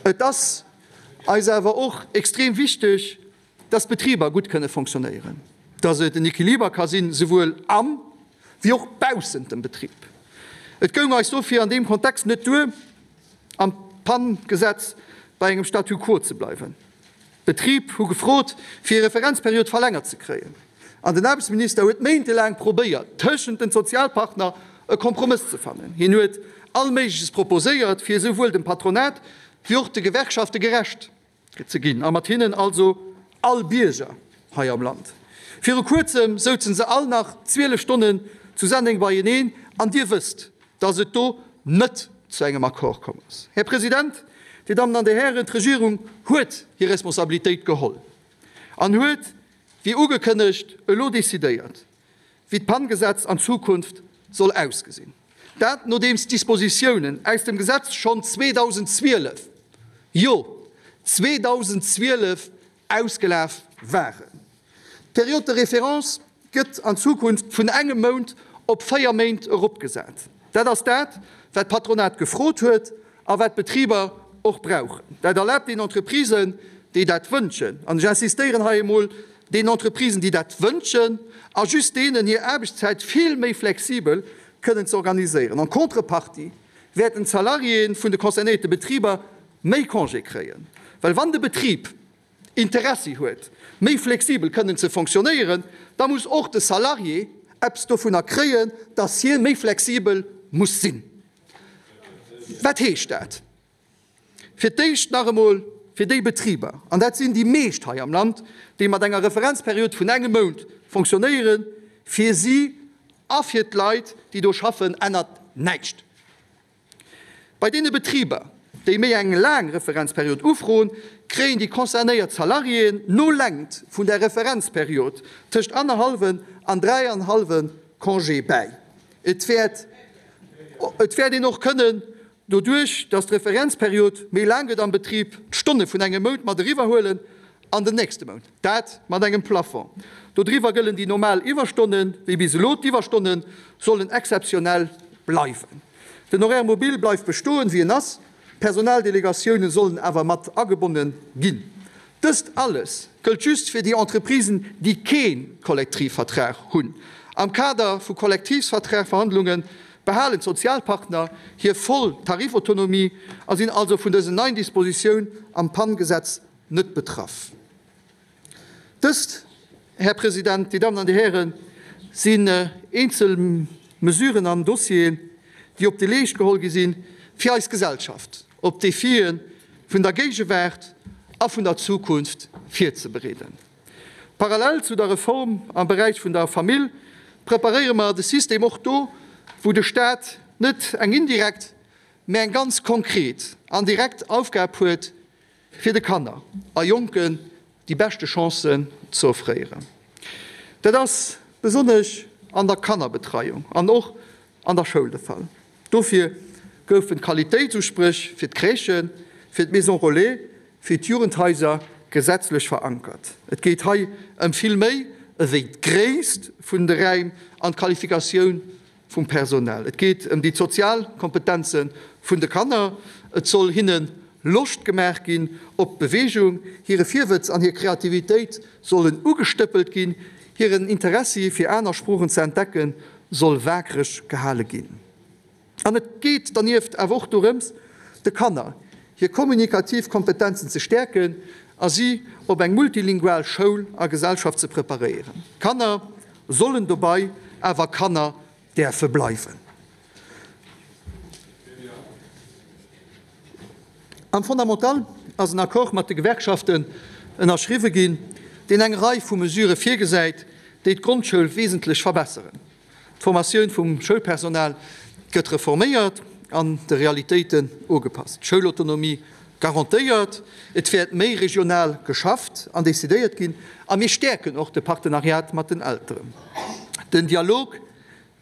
Et ass eis awer och extrem wichteg, dass d'Betriber gutt kënne fonctionnéieren, dass et en Equiliber ka sinn, souwuel am wéi och baussent dem Betrib. Et goung eis dofir an deem Kontext net duer, am PAN-Gesetz bei engem Statu quo ze bleiwen. D'Betrib hu gefrot, fir hir Referenzperiod verlängert ze kréien, an den Aarbechtsminister huet méintelaang probéiert, tëschent den Sozialpartner e Kompromëss ze fannen. Hien huet all Méigleches proposéiert, fir esouwuel dem Patronat wéi och de Gewerkschafte gerecht ze ginn, a mat hinnen also all Bierger hei am Land. Viru kuerzem souzen se all nach 12 Stonnen zu Senneng beieneen, an Dir wësst, dass et do net zu engem Accord komm ass. Här President, Dir Dammen an Dir Hären, d'Regierung huet hir Responsabilitéit geholl an huet, wéi ugekënnegt, elo decidéiert, wéi d'PAN-Gesetz an Zukunft soll ausgesinn. Dat nodeems d'Dispositiounen aus dem Gesetz schonn 2012, jo 2012, ausgelaf waren. D'Période de référence gëtt an Zukunft vun engem Mount op 4 Méint eropgesat. Dat ass dat, wat d'Patronat gefrot huet a wat d'Betriber och brauchen. Dat erlaabt den Entreprisen, déi dat wënschen, an ech insistéieren hei emol, den Entreprisen, déi dat wënschen, a just deenen, hir Aarbechtszäit vill méi flexibel kënnen ze organiséieren. En contrepartie wäerten d'Salariéen vun de concernéierte Betriber méi Congé kréien, well wann de Betrib Interessi huet, méi flexibel kënnen ze fonctionnéieren, da muss och de Salarié eppes dovunner kréien, dass hie méi flexibel muss sinn. Wat heescht dat? Fir d'éischt nach emol fir déi Betriber, an dat sinn déi meescht hei am Land, déi mat enger Referenzperiod vun engem Mount fonctionnéieren. Fir si a fir d'Leit, déi do schaffen, ännert näischt. Bei deene Betriber, déi méi eng laang Referenzperiod ufroen, kréien déi concernéiert Salariéen no Längt vun der Referenzperiod tëscht annerhallwen an dräianhallwe Congé bäi. Et wäert et wäert een och kënnen, doduerch datt d'Referenzperiod méi laang gëtt am Betrib, d'Stonne vun engem Mount mat eriwwerhuelen an den nächste Mount, dat mat engem Plafond. Dodriwwer gëllen déi normal Iwwerstonnen, wéi bis elo. D'Iwwerstonne sollen exzeptionell bleiwen. Den Horaire mobile bleift bestoen, wéi en ass. D'Personaldelegatioune sollen awer mat agebonne ginn. Dëst alles gëllt just fir déi Entreprisen, déi kee Kollektivvertrag hunn. Am Kader vu Kollektivsvertragverhandlunge behalen d'Sozialpartner hir voll Tarifautonomie a sinn also vun dësen neien Dispositioun am PAN-Gesetz net betraff. Dëst, Här President, Dir Dammen an Dir Hären, sinn eenzel Mesuren an Dossieren, déi op de Leescht geholl gi sinn, fir eis Gesellschaft op d'Defie vun der Géigewaart a vun der Zukunft virzebereeden. Parallel zu der Reform am Beräich vun der Famill preparéiere mer de System och do, wou de Stat net eng indirekt, mä eng ganz konkret an direkt Aufgab huet, fir de Kanner a Jonken déi beschte Chancen ze offréieren. Dat ass besonnesch an der Kannerbetreiung an och an der Schoul de Fall. Dofir goufen d'Qualitéitsuspréch fir d'Crèchen, fir d'Maisons relais, fir d'Jugendhaiser gesetzlech verankert. Et geet hei ëm vill méi ewéi d'Gréisst vun de Räim an d'Qualifikatioun vum Personal. Et geet ëm déi sozial Kompetenze vun de Kanner. Et soll hinne Loscht gemaach ginn op Beweegung, hire Virwëtz an hir Kreativitéit sollen ugestëppelt ginn, hiren Interessi fir aner Sproochen ze entdecken soll waakreg gehale ginn. An et geet dernieft awer och dorëms, de Kanner hir kommunikativ Kompetenzen ze stäerken a si op eng multilingual Schoul a Gesellschaft ze preparéieren. Kanner sollen dobei awer Kanner däerfe bleiwen. Am Fondamental ass en Accord mat de Gewerkschaften ënnerschriwwe ginn, deen eng Rei vu Mesurë virgesäit, déi d'Grondschoul wesentlech verbesseren. D'Formatioun vum Schoulpersonal gëtt reforméiert an de Realitéiten ugepasst, d'Schoulautonomie garantéiert, et wäert méi regional geschafft an decidéiert ginn a mir stäerken och de Partenariat mat den Elteren. Den Dialog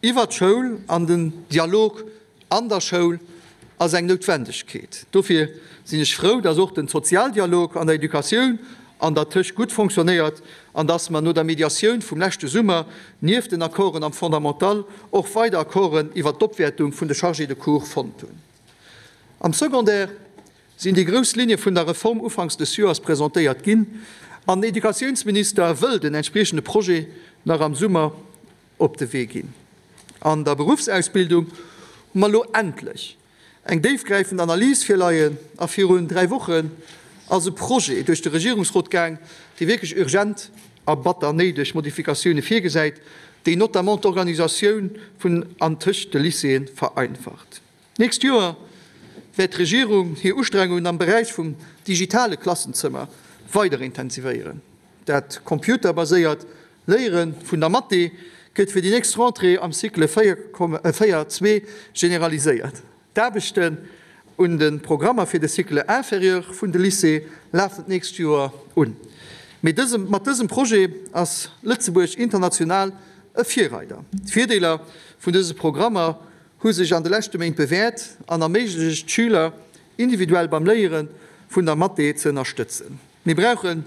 iwwer d'Schoul an den Dialog an der Schoul ass eng Noutwendegkeet. Dofir sinn ech frou, dass och den Sozialdialog an der Educatioun an der Tëscht gutt fonctionnéiert an dass mer no der Mediatioun vum leschte Summer nieft den Accorden am Fondamental och weider Accorden iwwert d'Opwäertung vun de Chargés de cours fonnt hunn. Am Secondaire sinn déi grouss Linne vun der Reform ufanks des Joers presentéiert ginn an den Educatiounsminister wëll den entspriechende Projet nach am Summer op de Wee ginn. An der Beruffsausbildung hu mer elo endlech eng déifgräifend Analys virleien a virun 3 Wochen ass e Projet duerch de Regierungsrot gaang, dee wierklech urgent a batter néideg Modifikatioune virgesäit, déi notamment d'Organisatioun vun an tëscht de Lycéeë vereinfacht. D'nächst Joer wäert d'Regierung hir Ustrengungen am Beräich vum digitale Klassenzëmmer weider intensivéieren. Dat computerbaséiert Léiere vun der Mathé gëtt fir déi nächst Rentrée am Cycle 4, 2 generaliséiert. D'Aarbechten un de Programmer fir de Cycle inférieur vun de Lycée lafen d'nächst Joer un. Mee mat dësem Projet ass Lëtzebuerg international e Virreider. D'Virdeeler vun dëse Programmer hu sech an de leschte Méint bewäert an erméiglecht d'Schüler individuell beim Léiere vun der Mathé ze ënnerstëtzen. Mir brauchen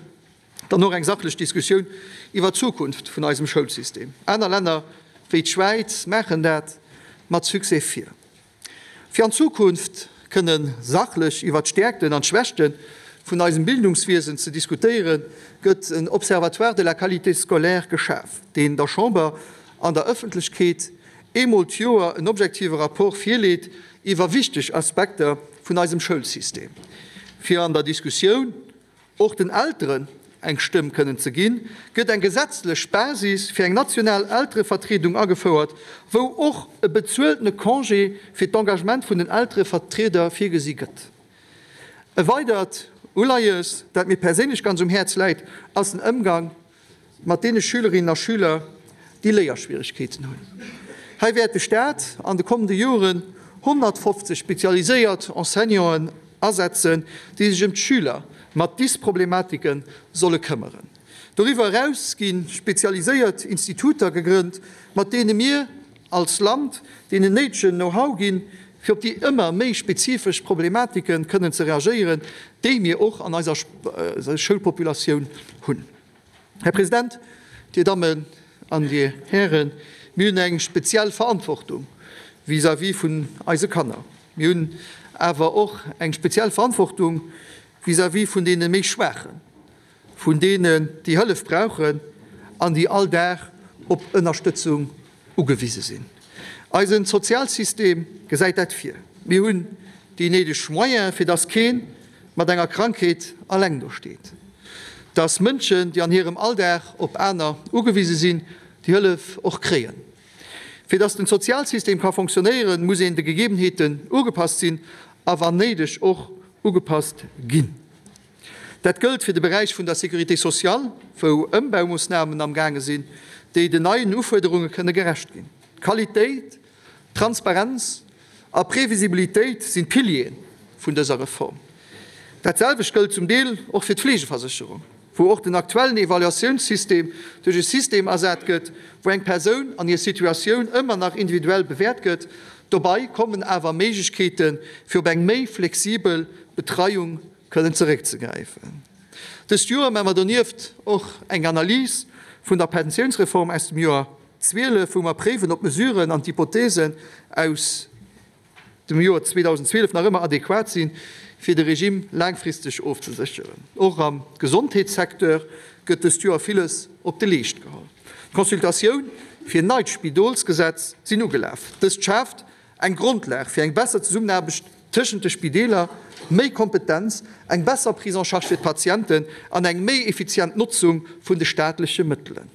dann och eng sachlech Diskussioun iwwer d'Zukunft vun eisem Schoulsystem. Aner Länner wéi d'Schwäiz maachen dat mat Succès vir. Fir an Zukunft kënne sachlech iwwer d'Stäerkten an d'Schwächte vun eisem Bildungswiesen ze diskutéieren, gëtt en Observatoire de la qualité scolaire geschaf, deen der Chamber an der Ëffentlechkeet eemol d'Joer en objektive Rapport virleet iwwer wichteg Aspekter vun eisem Schoulsystem, fir an der Diskussioun och den Elteren eng Stëmm kënnen ze ginn, gëtt eng gesetzlech Basis fir eng national Elterevertriedung agefouert, wou och e bezueltene Congé fir d'Engagement vun den Elterevertrieder virgesi gëtt. E weidert Uleies, dat mir perséinlech ganz um Häerz läit, ass den Ëmgang mat deene Schülerinnen a Schüler, déi Léierschwieregkeeten hunn. Hei wäert de Staat an de kommende Joren 150 spezialiséiert Enseignanten asetzen, déi sech ëm d'Schüler mat Dysproblematike solle këmmeren. Doriwwer eraus gi spezialiséiert Instituter gegrënnt, mat deene mir als Land deenen néidegen Know-how ginn, fir op déi ëmmer méi spezifesch Problematike kënnen ze reagéieren, déi mir och an eiser Schoulpopulatioun hunn. Här President, Dir Dammen an Dir Hären, mir hunn eng speziell Verantwortung vis-à-vis vun eise Kanner. Mir hunn awer och eng speziell Verantwortung vis-à-vis vun deene méi Schwaachen, vun deenen, déi Hëllef brauchen an déi all Dag op Ënnerstëtzung ugewise sinn. Eisen Sozialsystem gesäit dat vir. Mir hunn déi néideg Moyene fir dass kee mat enger Krankheet alleng do steet, dass Mënschen, déi an hirem Alldag op aner ugewise sinn, déi Hëllef och kréien. Fir dass den Sozialsystem ka fonctionnéieren, muss een de Gegebenheeten ugepasst sinn a wann néideg och ugepasst ginn. Dat gëllt fir de Beräich vun der Sécurité sociale, wou Ëmbaumoossnamen am gaange sinn, déi den neien Ufuerderunge kënne gerecht ginn. Qualitéit, Transparenz a Previsibilitéit sinn d'Piliere vun dëser Reform. Dat selwecht gëllt zum Deel och fir d'Fleegeversécherung, wou och den aktuellen Evaluatiounssystem duerch e System ersat gëtt, wou eng Persoun an hir Situatioun ëmmer nach individuell bewäert gëtt. Dobei kommen awer Méiglechkeete fir op eng méi flexibel Betreiung kënnen zeréckzegräifen. Dëst Joer maache mer donieft och eng Analys vun der Pensiounsreform aus dem Joer 12, wou mer préiwen, ob d'Mesuren an d'Hypothesen aus dem Joer 2012 nach ëmmer adequat sinn, fir de Regime laangfristeg ofzesécheren. Och am Gesondheetssecteur gëtt dëst Joer villes op de Leescht geholl. D'Consultatioun fir en neit Spidolsgesetz sinn ugelaf. Dëst schaaft Eng Grondlag fir eng besser Zesummenaarbecht tëschent de Spideeler, méi Kompetenz, eng besser Prise en charge fir d'Patienten an eng méi effizient Notzung vun de staatleche Mëttelen.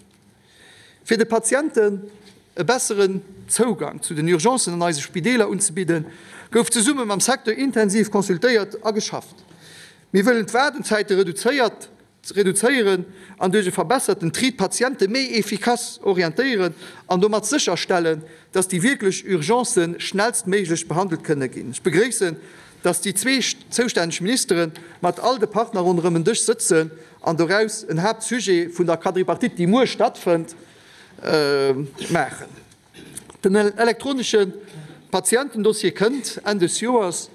Fir de Patienten e besseren Zougang zu den Urgencen an eise Spideeler unzebidden, gouf zesumme mam Secteur intensiv consultéiert a geschafft. Mir wëllen d'Waardenzäite reduzéiert ze reduzéieren an duerch e verbesserten Tri d'Patiente méi efficace orientéieren an domat sécherstellen, dass déi wierklech Urgencë schnellstméiglech behandelt kënne ginn. Ech begréissen, dass déi zwee zoustänneg Ministere mat all de Partner ronderëm en Dësch sëtzen an doraus en Haaptsujet vun der Quadripartite, déi muer stattfënnt, maachen. Den elektronesche Patientendossier kënnt Enn des Joers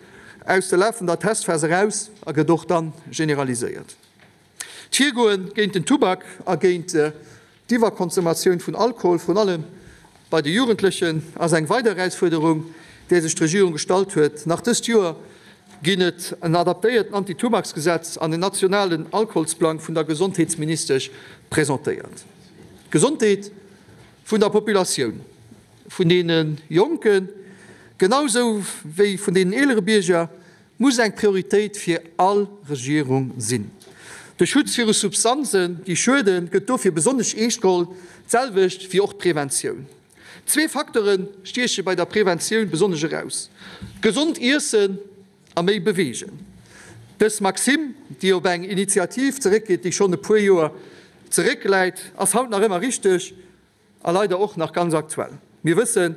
aus der lafender Testphas eraus a gëtt och da generaliséiert. D'Virgoe géint den Tubak a géint d'Iwwerkonsommatioun vun Alkohol, vrun allem bei de Jugendlechen, ass eng weider Erausfuerderung, där sech d'Regierung gestallt huet. Nach dëst Joer ginn et en adaptéierten Antitubaksgesetz an en nationalen Alkoholsplang vun der Gesondheetsministesch presentéiert. D'Gesondheet vun der Populatioun, vun deene Jonken, genau sou wéi vun deenen eelere Bierger, muss eng Prioritéit fir all Regierung sinn. De Schutz viru Substanzen, déi schueden, gëtt dofir besonnesch eescht geholl, d'selwecht wéi och d'Preventioun. Zwee Facteure stieche bei der Preventioun besonnesch eraus, gesond Iessen a méi beweegen. Dës Maxime, déi op eng Initiativ zeréckgeet, déi schonn e puer Joer zeréckläit, ass haut nach ëmmer richteg. A leider och nach ganz aktuell. Mir wëssen,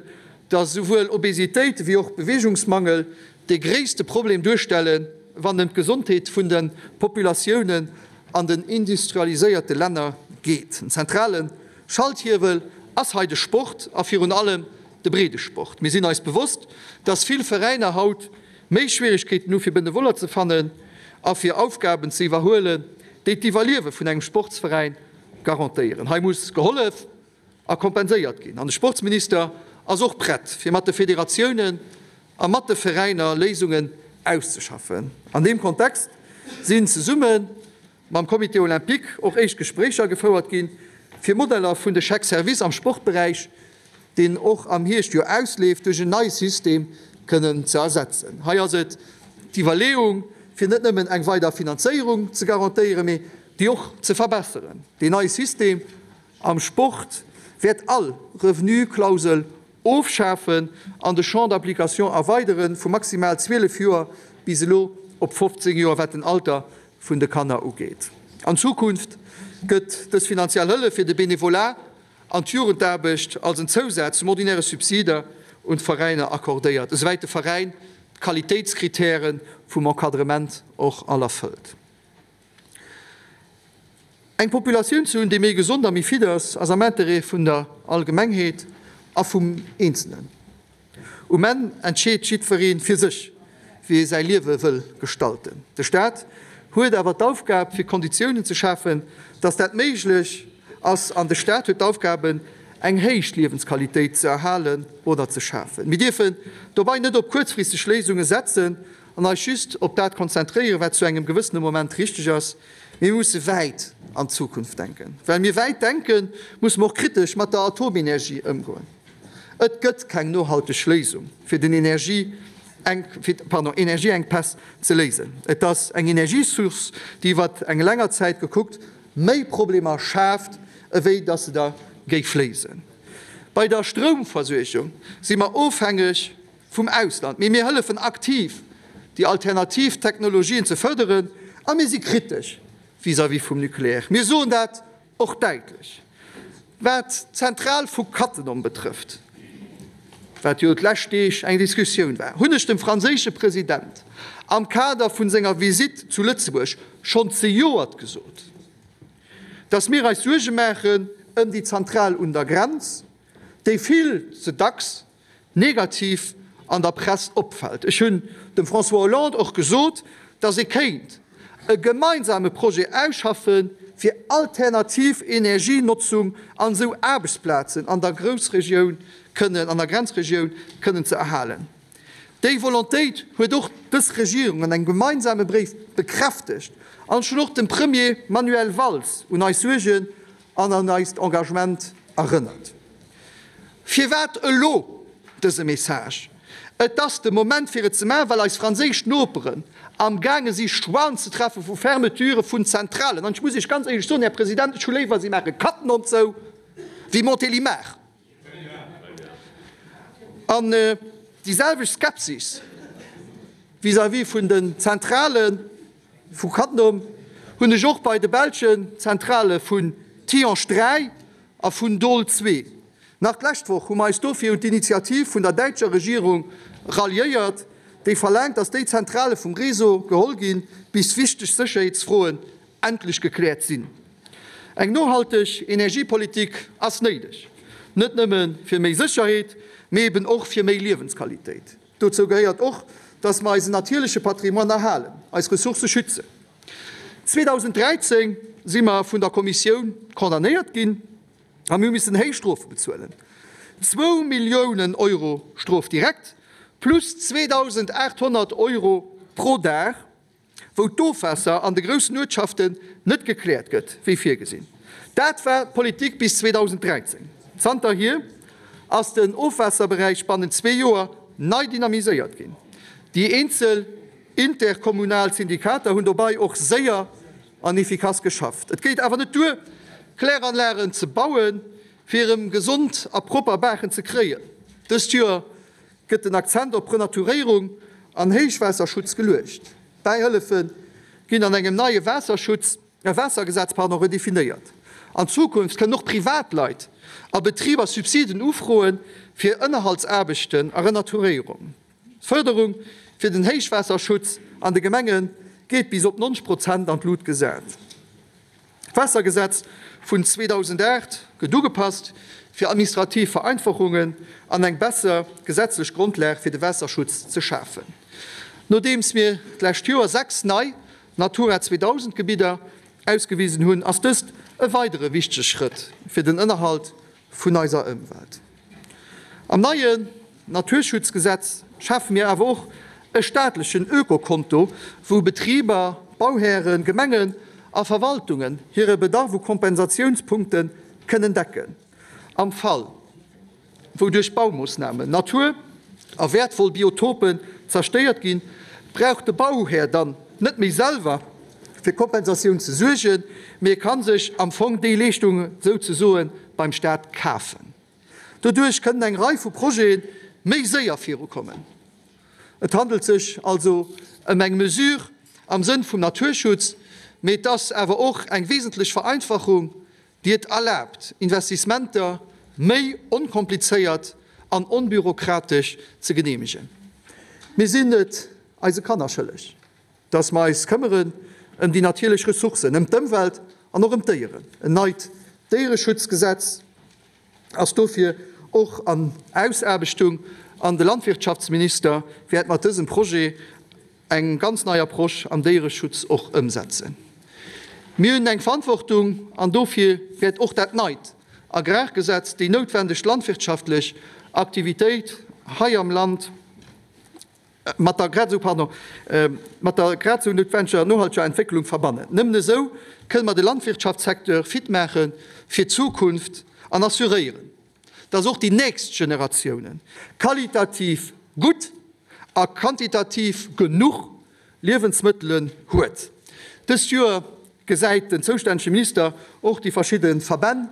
dass esouwuel Obesitéit wéi och Beweegungsmangel de gréisste Problem duerstellen, wann ëm d'Gesondheet vun de Populatiounen an den industrialiséierte Länner geet. En zentrale Schalthiewel ass hei de Sport a virun allem de Breedesport. Mir sinn eis bewosst, dass vill Veräiner haut méi Schwierigkeeten hu fir Benevoller ze fannen a fir Aufgaben ze iwwerhuelen, déi d'Iwwerliewe vun engem Sportsveräin garantéieren. Hei muss gehollef a kompenséiert ginn. An de Sportsminister ass och prett, fir mat de Federatiounen a mat de Veräiner Léisungen auszeschaffen. An deem Kontext sinn zesumme mam Comité olympique och éischt Gespréicher gefouert ginn, fir Modeller vun de Chèques-services am Sportberäich, deen och am Hierscht jo ausleeft, duerch en neie System kënnen ze ersetzen. Hei ass et d'Iwwerleeung, fir net nëmmen eng weider Finanzéierung ze garantéieren, mee déi och ze verbesseren. Deen neie System am Sport wäert all Revenu-Klausel ofschafen an de Champ d'application erweidere vu maximal 12 Joer bis elo op 15 Joer, wat den Alter vun de Kanner ugeet. An Zukunft gëtt dës finanziell Hëllef fir de Benevolat. an d'Jugendaarbecht als en Zousaz zum ordinäre Subsider un d'Veräiner accordéiert, esouwäit de Veräin d'Qualitéitskritäre vum Encadrement och all erfëllt. Eng Populatioun ze hunn, déi méi gesond a méi fit ass, ass am Interêt vun der Allgemengheet a vum Eenzelnen. Um Enn entscheet jiddweree fir sech, wéi e säi Liewe wëll gestalten. De Staat huet awer d'Aufgab, fir Konditiounen ze schafen, dass dat méiglech ass. An de Staat huet d'Aufgabe, eng héich Liewensqualitéit ze erhalen oder ze schafen. Mir dierfen dobei net op kuerzfristeg Léisunge setzen an eis just op dat konzentréieren, wat zu engem gewëssene Moment richteg ass. Mir musse wäit an d'Zukunft denken. Well mir wäit denken, musse mer och kritesch mat der Atomenergie ëmgoen. Et gëtt keng nohalteg Léisung, fir den Energieenkpäss ze léisen. Et ass eng Energiesource, déi iwwer eng länger Zäit gekuckt méi Problemer schaaft, ewéi datt se der géif léisen. Bei der Stroumversuergung si mer ofhängeg vum Ausland, mee mir hëllefen aktiv, déi alternativ Technologien ze fërderen a mir si kritesch vis-à-vis vum Nucléaire. Mir soen dat och däitlech. Wat d'Zentral vu Cattenom betrëfft, wat jo d'lescht Deeg eng Diskussioun war, hunn ech dem franséische President am Kader vu senger Visitt zu Lëtzebuerg schonn zejoert gesot, dass mir eis Suerge maachen ëm déi Zentral un der Grenz, déi vill ze dacks negativ an der Press opfält. Ech hunn dem François Hollande och gesot, datt ee kéint e gemeinsame Projet ausschaffe fir alternativ Energienotzung an esou Aarbechtsplazen an der Groussregioun kënnen, an der Grenzregioun kënnen ze erhalen. Déi Volontéit huet och dës Regierung an engem gemeinsame Bréif bekräftegt an ech hunn och dem Premier Manuel Valls un eis Suergen an an eist Engagement erënnert. Firwat elo dëse Message? Et ass de Moment fir et ze maachen, well eis franséisch Noperen am gaange si Choixen ze treffe vu Fermeture vun Zentralen. An ech muss Iech ganz éierlech soen, Här President, ech hu léiwer si maache Cattenom zou wéi Montélimar. An déi selwecht Skepsis vis-à-vis vun den Zentrale vu Cattenom hunn ech och bei de belschen Zentrale vun Tihange 3 a vun Doel 2. Nach d'lescht Woch hu mer eis dofir un d'Initiativ vun der däitscher Regierung ralliéiert, déi verlaangt, datt déi Zentrale vum Réseau geholl ginn, bis wichteg Sécherheetsfroen endlech gekläert sinn. Eng nohalteg Energiepolitik ass néideg, net nëmme fir méi Sécherheet, mee eben och fir méi Liewensqualitéit. Dozou gehéiert och, dass mer eisen natierleche Patrimoine erhalen, eis Ressourcë schützen. 2013 si mer vun der Kommissioun condamnéiert ginn a mir hu missen héich Strofe bezuelen, zwou Milliounen Euro Strof direkt plus 2.800 Euro pro Dag. wou d'Ofwaasser an de groussen Uertschaften net gekläert gëtt, wéi virgesinn. Dat war d'Politik bis 2013. Zanterhier ass den Ofwaasserberäich bannent zwee Joer nei dynamiséiert ginn. Déi eenzel interkommunal Syndikater hunn dobei och séier an efficace geschafft. Et geet awer net duer, Kläranlagen ze bauen, fir erëm gesond a propper Baachen ze kréien. Dëst Joer gëtt den Akzent op Renaturéierung an Héichwaasserschutz geluecht. D'Bäihëllefe ginn an engem neie Waasserschutz, Waassergesetz, pardon, redefinéiert. An Zukunft kënnen och Privatleit a Betriber Subsiden ufroe fir Ënnerhaltsaarbechten a Renaturéierung. D'Fërderung fir den Héichwaasserschutz an de Gemenge geet bis op 90 Prozent an d'Lut gesat. D'Waassergesetz vun 2008 gëtt ugepasst, fir administrativ Vereinfachungen an eng besser gesetzlech Grondlag fir de Waasserschutz ze schafen. Nodeems mir d'lescht Joer 6 nei Natura 2000 Gebidder ausgewisen hunn, ass dëst e weidere wichtege Schrëtt fir den Ënnerhalt vun eiser Ëmwelt. Am neien Naturschutzgesetz schafe mir awer och e staatlechen Ökokonto, wou Betriber, Bauhären, Gemengen a Verwaltungen hire Bedarf u Kompensatiounspunkte kënnen decken, am Fall wou duerch Baumoossnamen Natur a wäertvoll Biotopen zerstéiert ginn, brauch de Bauhär dann net méi selwer fir Kompensatioun ze suergen, mee e ka sech am Fong déi Leeschtung souzesoe beim Staat kafen. Doduerch kënnen eng Rei vu Projete méi séier virukommen. Et handelt sech also ëm eng Mesure am Sënn vum Naturschutz, mee et ass awer och eng wesentlech Vereinfachung. déi et erlaabt, Investissementer méi onkomplizéiert an onbürokratesch ze geneemegen. Mir sinn et eise Kanner schëlleg, dass mer eis këmmeren ëm déi natierlech Ressourcen, ëm d'Ëmwelt an och ëm d'Déieren. En neit Déiereschutzgesetz ass dofir och an Ausaarbechtung an de Landwirtschaftsminister wäert mat dësem Projet eng ganz nei Approche am Déiereschutz och ëmsetzen. Mir hunn eng Verantwortung an dofir wäert och dat neit Agrargesetz déi noutwendeg landwirtschaftlech Aktivitéit hei am Land mat der grad esou, pardon, mat der grad esou noutwendeger nohalteger Entwécklung verbannen. Nëmmen esou kënne mer de Landwirtschaftssecteur fit maache fir d'Zukunft an assuréieren, dass och déi nächst Generatiounen qualitativ gutt a quantitativ genuch Liewensmëttelen huet. Dëst Joer gesäit den zoustännege Minister och déi verschidde Verbänn,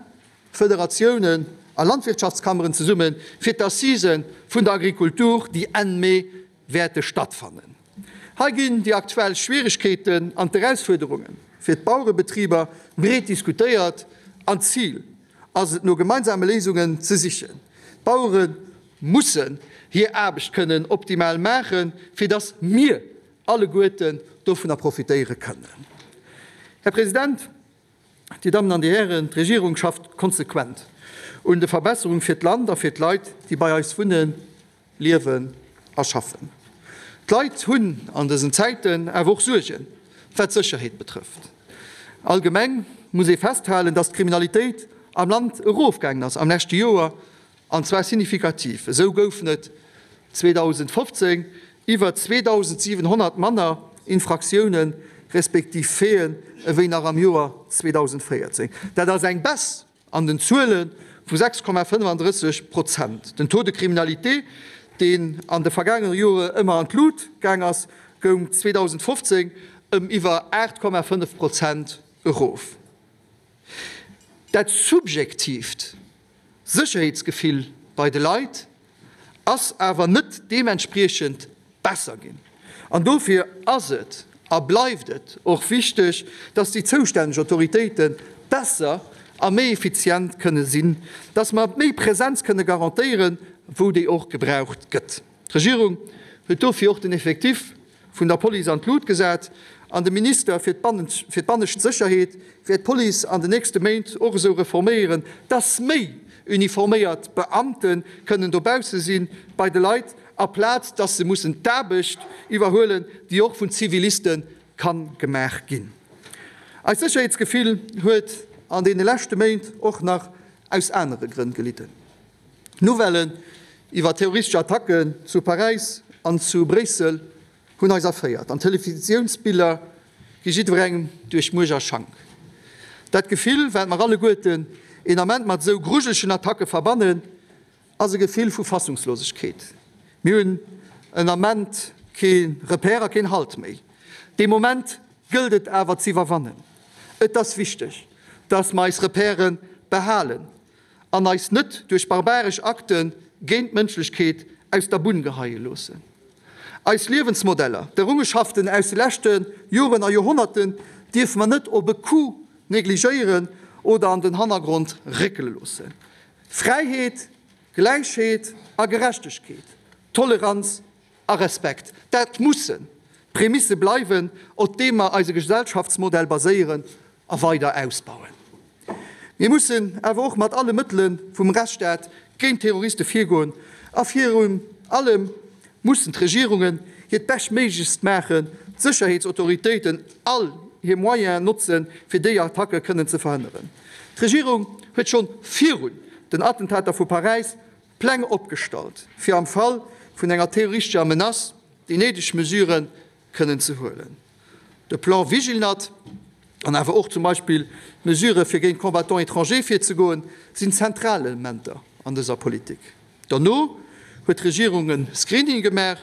Federatiounen a Landwirtschaftskammeren zesumme fir d'Assisen vun der Agrikultur, déi Enn Mee wäerte stattfannen. Hei ginn déi aktuell Schwieregkeeten an d'Erausfuerderunge fir d'Bauerebetriber breet diskutéiert an d'Zil ass et no gemeinsame Léisungen ze sichen. D'Bauere mussen hir Aarbecht kënnen optimal maachen, fir datt mir alleguerten dovunner profitéiere kënnen. Här President, Dir Dammen an Dir Hären, d'Regierung schafft konsequent un de Verbesserung fir d'Land a fir d'Leit, déi bei eis wunnen, liewen a schaffen. D'Leit hunn an dësen Zäiten awer och Suergen, wat d'Sécherheet betrëfft. Allgemeng muss ee festhalen, datt d'Kriminalitéit am Land erofgaangen ass am leschte Joer, an zwar signifikativ. Esou goufen et 2015 iwwer 2.700 manner Infraktiounen, respektiv Faiten, ewéi nach am Joer 2014. Dat ass eng Baisse an den Zuele vu 6,35 Prozent. Den Taux de criminalité, deen an de vergaangene Jore ëmmer an d'Lut gaang ass, goung 2015 ëm iwwer 8,5 Prozent erof. Dat subjektiivt Sécherheetsgefill bei de Leit ass awer net deementspriechend besser ginn. An dofir ass et a bleift et och wichteg, dass déi zoustänneg Autoritéite besser a méi effizient kënne sinn, dass mer méi Präsenz kënne garantéieren, wou déi och gebraucht gëtt. D'Regierung huet dofir och den Effectif vun der Police an d'Lut gesat an de Minister fir d'bannescht Sécherheet wäert d'Police an den nächste Méint och esou reforméieren, dass méi uniforméiert Beamte kënnen dobausse si bei de Leit, aplaz dass se mussen d'Aarbecht iwwerhuelen, déi och vun Ziviliste ka gemaach ginn. Eist Sécherheetsgefill huet an deene leschte Méint och nach aus anere Grënn gelidden. D'Nouvellen iwwer terroristesch Attacken zu Paräis an zu Bréissel hunn eis erféiert an d'Televisiounsbiller gi jiddwerengem duerch Muerch a Schank. Dat Gefill, wat mer alleguerten een Ament mat esou grujelegen Attacke verbannen, ass e Gefill vu Fassungslosegkeet. Mir hunn en Ament kee Repère a keen Halt méi. Dee Moment gëllt et awer z'iwwerwannen. Et ass wichteg, dass mer eis Repèrë behalen an eis net duerch barbaresch Akte géint d'Mënschlechkeet aus der Bunn geheie loossen. Eis Liewensmodeller, d'Errungeschaften aus de leschte Joren a Joerhonnerten dierfe mer net op e Coup negligéieren oder an den Hannergrond réckele loossen. Fräiheet, Gläichheet a Gerechtegkeet, Toleranz a Respekt, dat mussen d'Prämisse bleiwen, op deem mer eise Gesellschaftsmodell baséieren a weider ausbauen. Mir mussen awer och mat alle Mëttele vum Rechtsstaat géint Terroriste virgoen a virun allem mussen d'Regierungen hiert Beschtméiglechst maachen, d'Sécherheetsautoritéiten all hir Moyenen notzen, fir déi Attacke kënnen ze verhënneren. D'Regierung huet schonn virun den Attentater vu Paräis Pläng opgestallt, fir am Fall vun enger terroristescher Menace déi néideg Mesurë kënnen ze huelen. De Plan Vigilnat an awer och zum Beispill d'Mesurë fir géint Combattants étrangers virzegoen, sinn zentral Elementer an dëser Politik. Derno huet d'Regierung e Screening gemaach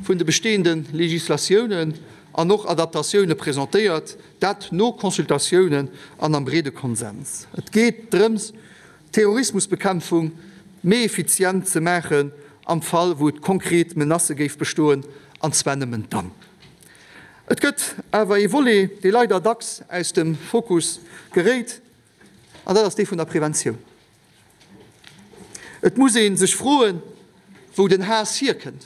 vun de bestehende Legislatiounen an och Adaptatioune presentéiert, dat no Consultatiounen an am breede Konsens. Et geet drëms, d'Terrorismusbekämpfung méi effizient ze maachen am Fall wou et konkret Menacë géif bestoen, an zwar nëmmen dann. Et gëtt awer ee Volet, dee leider dacks aus dem Fokus geréit. An dat ass dee vun der Preventioun. Et muss ee sech froen, wou den Haass hierkënnt,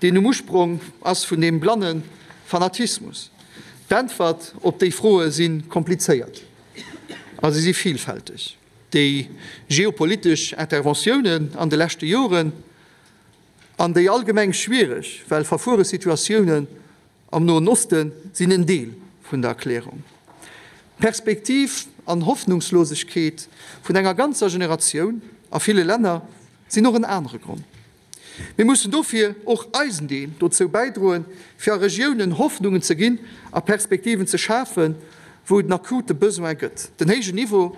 deen um Usprong ass vun deem blanne Fanatismus. D'Äntwert op déi Froe si komplizéiert a se si vilfälteg. Déi geopolitesch Interventiounen an de leschte Joren an déi allgemeng schwiereg, well verfuere Situatiounen Am Noen Oste sinn en Deel vun der Erklärung. D'Perspektiv an Hoffnungslosegkeet vun enger ganzer Generatioun a ville Länner sinn och en anere Grond. Mir mussen dofir och eisen Deel dozou bäidroen, fir a Regiounen Hoffnungen ze ginn a Perspektiven ze schafen, wou et en akute Besoin gëtt. Den héijen Niveau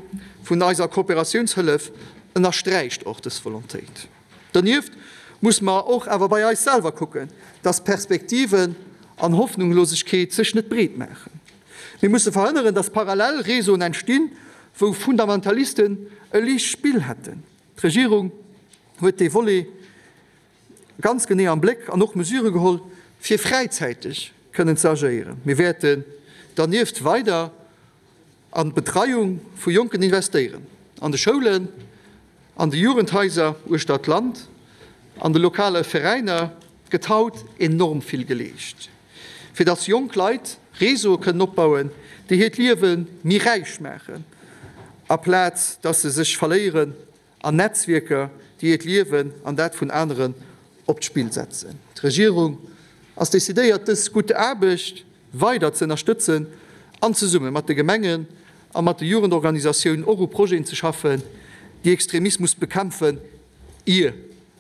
vun eiser Kooperatiounshëllef ënnersträicht och dës Volontéit. Donieft muss mer och awer bei eis selwer kucken, dass Perspektiven an Hoffnunglosegkeet sech net breet maachen. Mir musse verhënneren, dass parallel Réseauen entstinn, wou Fundamentalisten e liicht Spill hätten. D'Regierung huet dee Volet ganz genee am Bléck an och Mesure geholl, fir fräizäiteg kënnen ze agéieren. Mir wäerten dernieft weider an d'Betreiung vu Jonken investéieren, an de Schoulen, an de Jugendhaiser uechter d'Land, an de lokale Veräiner gëtt haut enorm vill geleescht, fir dass jonk Leit Réseaue kënnen opbauen, déi hiert Liewe méi räich maachen, aplaz dass se sech verléieren an Netzwierker, déi hiert Liewen an dat vun aneren op d'Spill setzen. D'Regierung ass decidéiert, dës gutt Aarbecht weider ze ënnerstëtzen an zesumme mat de Gemengen a mat de Jugendorganisatiounen och u Projeten ze schaffen, déi Extremismus bekämpfen, ier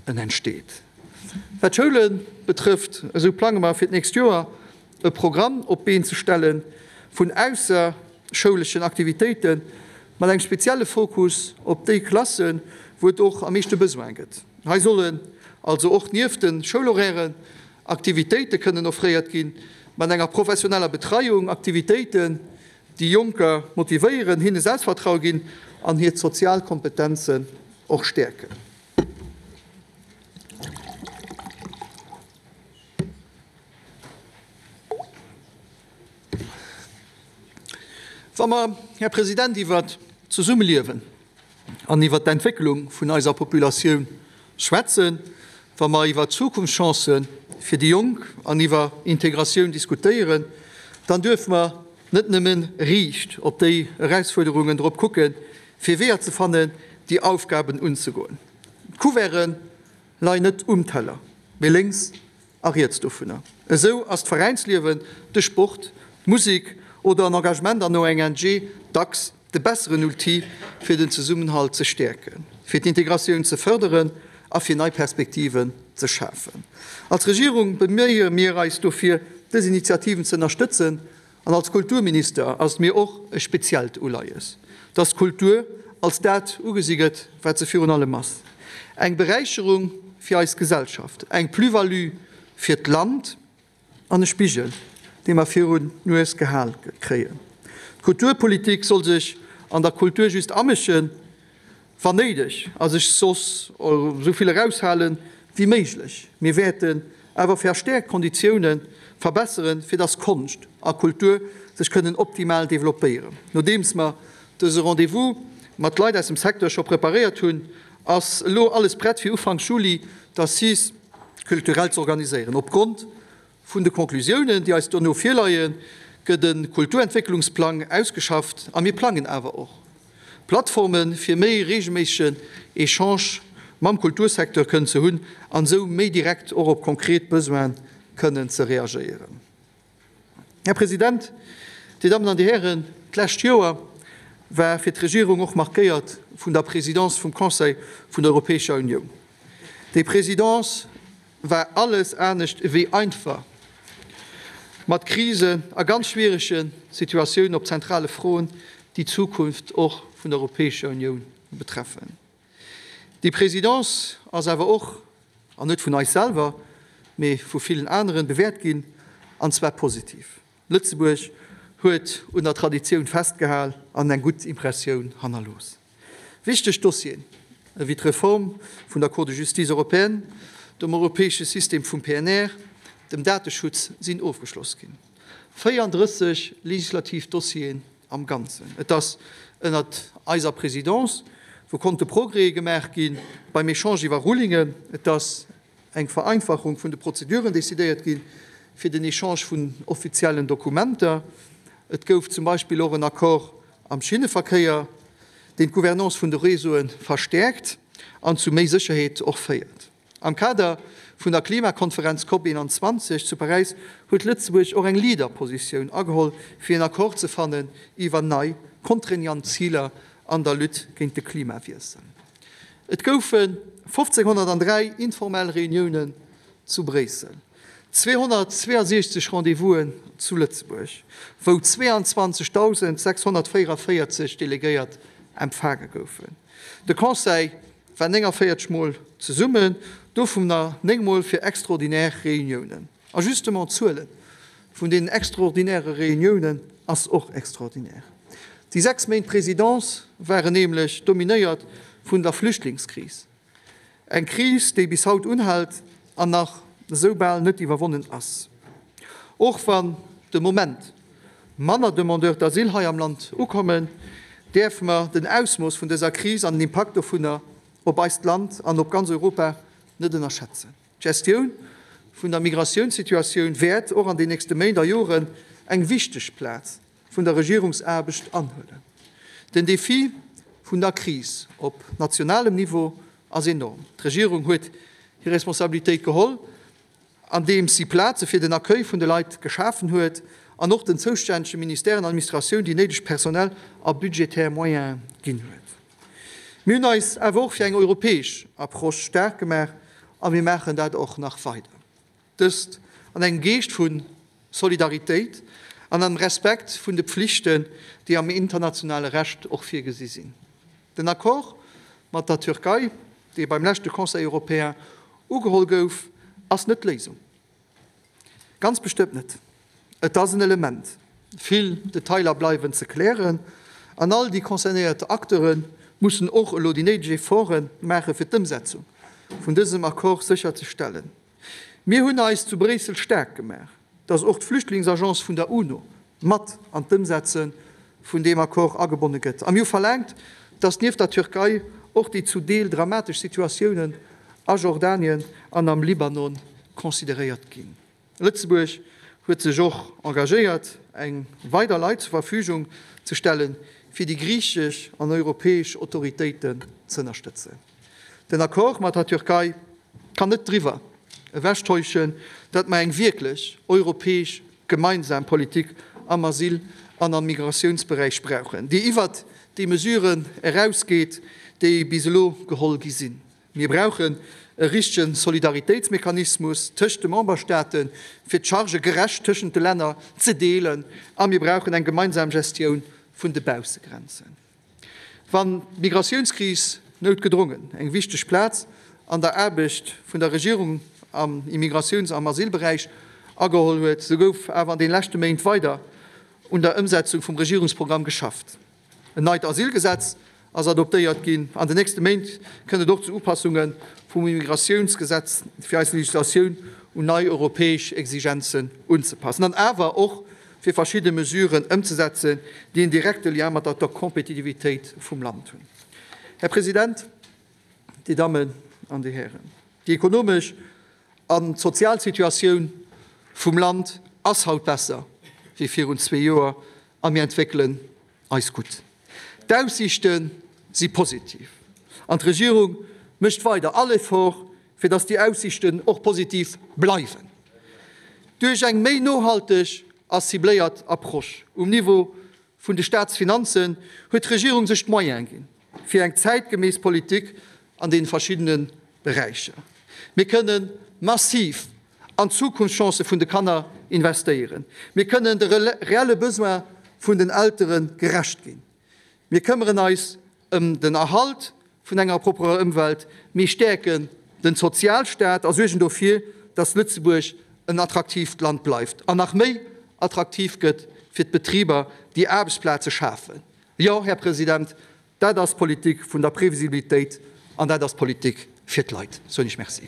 en entsteet. Wat d'Schoule betrëfft, esou plange mer fir d'nächst Joer e Programm op d'Been ze stelle vun ausserschouleschen Aktivitéite mat engem spezielle Fokus op déi Klassen, wou et och am meeschte Besoin gëtt. Hei sollen also och nieft de Schoulhorairen Aktivitéite kënnen offréiert ginn, mat enger professioneller Betreiung, Aktivitéiten, déi Jonker motivéieren, hinne Selbstvertraue ginn an hir sozial Kompetenzen och stäerken. Wa mer, Här President, iwwert d'Zesummeliewen an iwwert d'Entwécklung vun eiser Populatioun schwätzen, wa mer iwwer Zukunftschancë fir déi Jonk an iwwer Integratioun diskutéieren, dann duerfe mer net nëmme riicht op déi Erausfuerderungen drop kucken, fir Weeër ze fannen, déi Aufgaben unzegoen. D'Couverte leien net um Teller, mee lénks a riets dovunner. Esou ass d'Veräinsliewen, de Sport, d'Musek oder en Engagement an ONGe dacks de besseren Outil, fir den Zesummenhalt ze stäerken, fir d'Integratioun ze fërderen a fir nei Perspektiven ze schafen. Als Regierung beméie mir eis dofir, dës Initiativen ze ënnerstëtzen An als Kulturminister ass et mir och e speziellt Uleies, dass d'Kultur als dat ugesi gëtt, wat se virun allem ass, eng Beräicherung fir eis Gesellschaft, eng Plus-value fir d'Land an e Spigel, dee mer virun d'Nues gehal kréien. D'Kulturpolitik soll sech an der Kultur just amëschen, Wann néideg, a sech soss esou vill eraushale wéi méiglech. Mir wäerten awer verstäerkt d'Konditioune verbesseren, fir dass Konscht a Kultur sech kënnen optimal developpéieren. Nodeems mer dëse Rendez-vous mat Leit aus dem Secteur scho preparéiert hunn, ass elo alles prett fir Ufanks Juli d'Assises culturelles z'organiséieren. Opgrond Vun de Conclusiounen, déi eis dono virleien, gëtt e Kulturentwécklungsplang ausgeschafft a mir plangen awer och Plattformen, fir méi reegelméissegen Echange mam Kultursecteur kënnen ze hunn an esou méi direkt och op konkret Besoine kënnen ze reagéieren. Här President, Dir Dammen an Dir Hären, d'lescht Joer war fir d'Regierung och markéiert vun der Présidence vum Conseil vun der Europäescher Unioun. Déi Présidence war alles anescht ewéi einfach, mat Krisen a ganz schwierege Situatiounen op zentrale Froen, déi d'Zukunft och vun der Europäescher Unioun betreffen. Déi Présidence ass awer och, an net vun eis selwer, mee vu villen aneren, bewäert ginn, an zwar positiv. Lëtzebuerg huet un der Traditioun festgehal an eng gutt Impressioun hannerlooss. Wichteg Dossieren ewéi d'Reform vun der Cour de justice européenne, dem europäesche System vum PNR, dem Dateschutz sinn ofgeschloss ginn. 34 legislativ Dossiere. am Ganzen. Et ass ënnert eiser Présidence, wou konnte Progrèse gemaach gi beim Echange iwwer Rulingen. Et ass eng Vereinfachung vun de Prozeduren decidéiert gi fir den Echange vun offiziellen Dokumenter. Et gouf zum Beispill och en Accord am Schinneverkéier, deen d'Gouvernance vun de Réseaue verstäerkt an zu méi Sécherheet och féiert. Am Kader vun der Klimakonferenz Cop 21 zu Paräis huet Lëtzebuerg och eng Leaderpositioun ageholl, fir en Accord ze fannen iwwer nei contraignant Ziler an der Lutte géint de Klimawiessel. Et goufe 1.503 informell Reuniounen zu Bréissel, 262 Rendez-vousen zu Lëtzebuerg, wou 22.644 Delegéiert empfaange goufen. De Conseil war 49 Mol zesummen, dovunner 9 Mol fir extraordinär Reuniounen. A justement d'Zuele vun deenen extraordinäre Reuniounen ass och extraordinär. Déi 6 Méint Présidence waren nämlech dominéiert vun der Flüchtlingskris, eng Kris, déi bis haut unhält an nach esou bal net iwwerwonnen ass. Och wann de Moment manner Demandeurs d'asile hei am Land ukommen, däerfe mer den Ausmooss vun dëser Kris an den Impakt dovunner op eist Land an op ganz Europa net ënnerschätzen. D'Gestioun vun der Migratiounssituatioun wäert och an den nächste Méint a Joren eng wichteg Plaz vun der Regierungsaarbecht anhuelen. Den Defi vun der Kris op nationalem Niveau ass enorm. D'Regierung huet hir Responsabilitéit geholl, andeems si Plaze fir den Accueil vun de Leit geschafen huet an och den zoustännege Ministèren an Administratioun déi néideg personell a budgetär Moyene ginn huet. Mir hunn eis awer och fir eng europäesch Approche staark gemaach a mir maachen dat och nach weider. Dëst an engem Geescht vu Solidaritéit an am Respekt vun de Pflichten, déi am internationale Recht och virgesi sinn. Den Accord mat der Türkei, dee beim leschte Conseil européen ugeholl gouf, ass net d'Léisung. Ganz bestëmmt net. Et ass en Element. Vill Detailer bleiwen ze klären an all déi concernéiert Acteure mussen och elo déi néideg Efforte maache fir d'Ëmsetzung vun dësem Accord sécherzestellen. Mir hunn eis zu Bréissel staark gemaach, datt och d'Flüchtlingsagence vun der UNO mat an d'Ëmsetze vun deem Accord agebonne gëtt. A mir hu verlaangt, datt nieft der Türkei och déi zu Deel dramatesch Situatiounen a Jordanien an am Libanon consideréiert ginn. Lëtzebuerg huet sech och engagéiert, eng weider Leit zur Verfügung ze stellen, fir déi griichesch an europäesch Autoritéiten z'ënnerstëtzen. Den Accord mat der Türkei kann net driwwer ewechtäuschen, datt mer eng wierklech europäesch gemeinsam Politik am Asyl an am Migratiounsberäich brauchen, déi iwwert déi Mesuren erausgeet, déi bis elo geholl gi sinn. Mir brauchen e richtege Solidaritéitsmechanismus tëscht de Memberstaaten, fir d'Chargë gerecht tëschent de Länner ze deelen, a mir brauchen eng gemeinsam Gestioun vun de Baussegrenzen. Wann d'Migratiounskris noutgedrongen eng wichteg Plaz an der Aarbecht vun der Regierung am Immigratiouns am Asylberäich ageholl huet, sou gouf awer an de leschte Méint weider un der Ëmsetzung vum Regierungsprogramm geschafft. En neit Asylgesetz ass adoptéiert ginn. An den nächste Méint kënnt et och zu Upassunge vum Immigratiounsgesetz, fir eis Legislatioun un nei europäesch Exigenzen unzepassen an awer och fir verschidde Mesuren ëmzesetzen, déi en direkte Lien mat der Kompetitivitéit vum Land hunn. Här President, Dir Dammen an Dir Hären, déi ekonomesch an d'sozial Situatioun vum Land ass haut besser wéi virun zwee Joer a mir entwéckelen eis gutt. D'Aussiichte si positiv an d'Regierung mécht weider all Effort, fir datt déi Aussiichten och positiv bleiwen. Duerch eng méi nohalteg a cibléiert Approche um Niveau vun de Staatsfinanzen huet d'Regierung sech d'Moyene ginn, fir eng zäitgemäss Politik an deene verschiddene Beräicher. Mir kënne massiv an d'Zukunftschancë vun de Kanner investéieren. Mir kënnen de reelle Besoin vun den Eltere gerecht ginn. Mir këmmeren eis ëm den Erhalt vun enger propperer Ëmwelt. Mir stäerken den Sozialstaat a suergen dofir, dass Lëtzebuerg en attraktiivt Land bleift an nach méi attraktiv gëtt fir d'Betriber, déi Aarbechtsplaze schafen. Jo, Här President, Dat ass d'Politik vun der Previsibilitéit an dat ass d'Politik fir d'Leit. Soen ech Merci.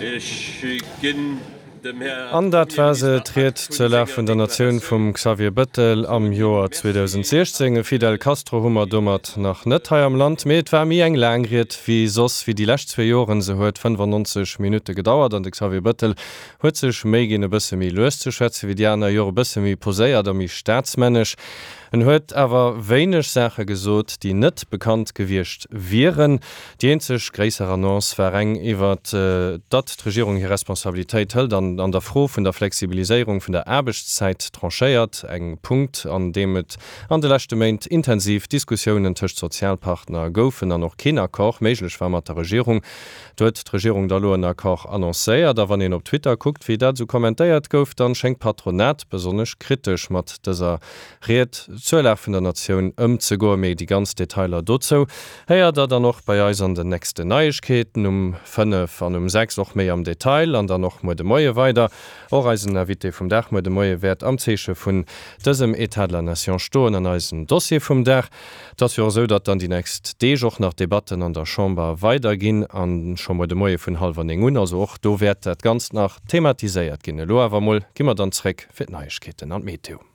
Ech ginn. Dem Här An dat war se, Premierminister d'Ried Akt vun zur Lag senger vun der Natioun Deklaratioun. vum Xavier Bëttel am Joer 2016. E Fidel Castro hu mer domat nach net hei am Land, mee et war méi eng laang Ried wéi soss, wéi déi lescht zwee Joren. Se huet 95 Minutte gedauert an de Xavier Bëttel huet sech Méi ginn, e bësse méi lues ze schwätzen wéi déi aner Jore, e bësse méi poséiert a méi staatsmännesch. En huet awer wéineg Saache gesot, déi net bekannt gewiescht wieren. Déi eenzeg gréisser Annonce war eng iwwer datt d'Regierung hir Responsabilitéit hëlt an an der Fro vun der Flexibiliséierung vun der Aarbechtszäit tranchéiert. Eng Punkt, an deem et an de leschte Méint intensiv Diskussiounen tëscht Sozialpartner goufen an och keen Accord méiglech war mat der Regierung. Do huet d'Regierung da lo en Accord annoncéiert. A wann een op Twitter kuckt, wéi dat esou kommentéiert gouf, dann schéngt d'Patronat besonnesch kritesch mat dëser Ried zur Lag vun der Natioun ëmzegoen. Mee déi ganz Detailer dozou héiert der dann och bei eis an den nächsten Neiegkeeten um 5 an um 6 och méi am Detail an dann och muer de Moie weider. Och eisen Invité vum Dag muer de Moie wäert am Zeeche vun dësem État de la Nation stoen an eisen Dossier vum Dag. Et ass jo och esou, datt dann déi nächst Deeg och nach d'Debatten an der Chamber weiderginn a scho muer de Moie vun hallwer 9 un. Also och do wäert dat Ganzt nach thematiséiert ginn. Elo awer emol gi mer dann zréck fir d'Neiegkeeten an d'Meteo.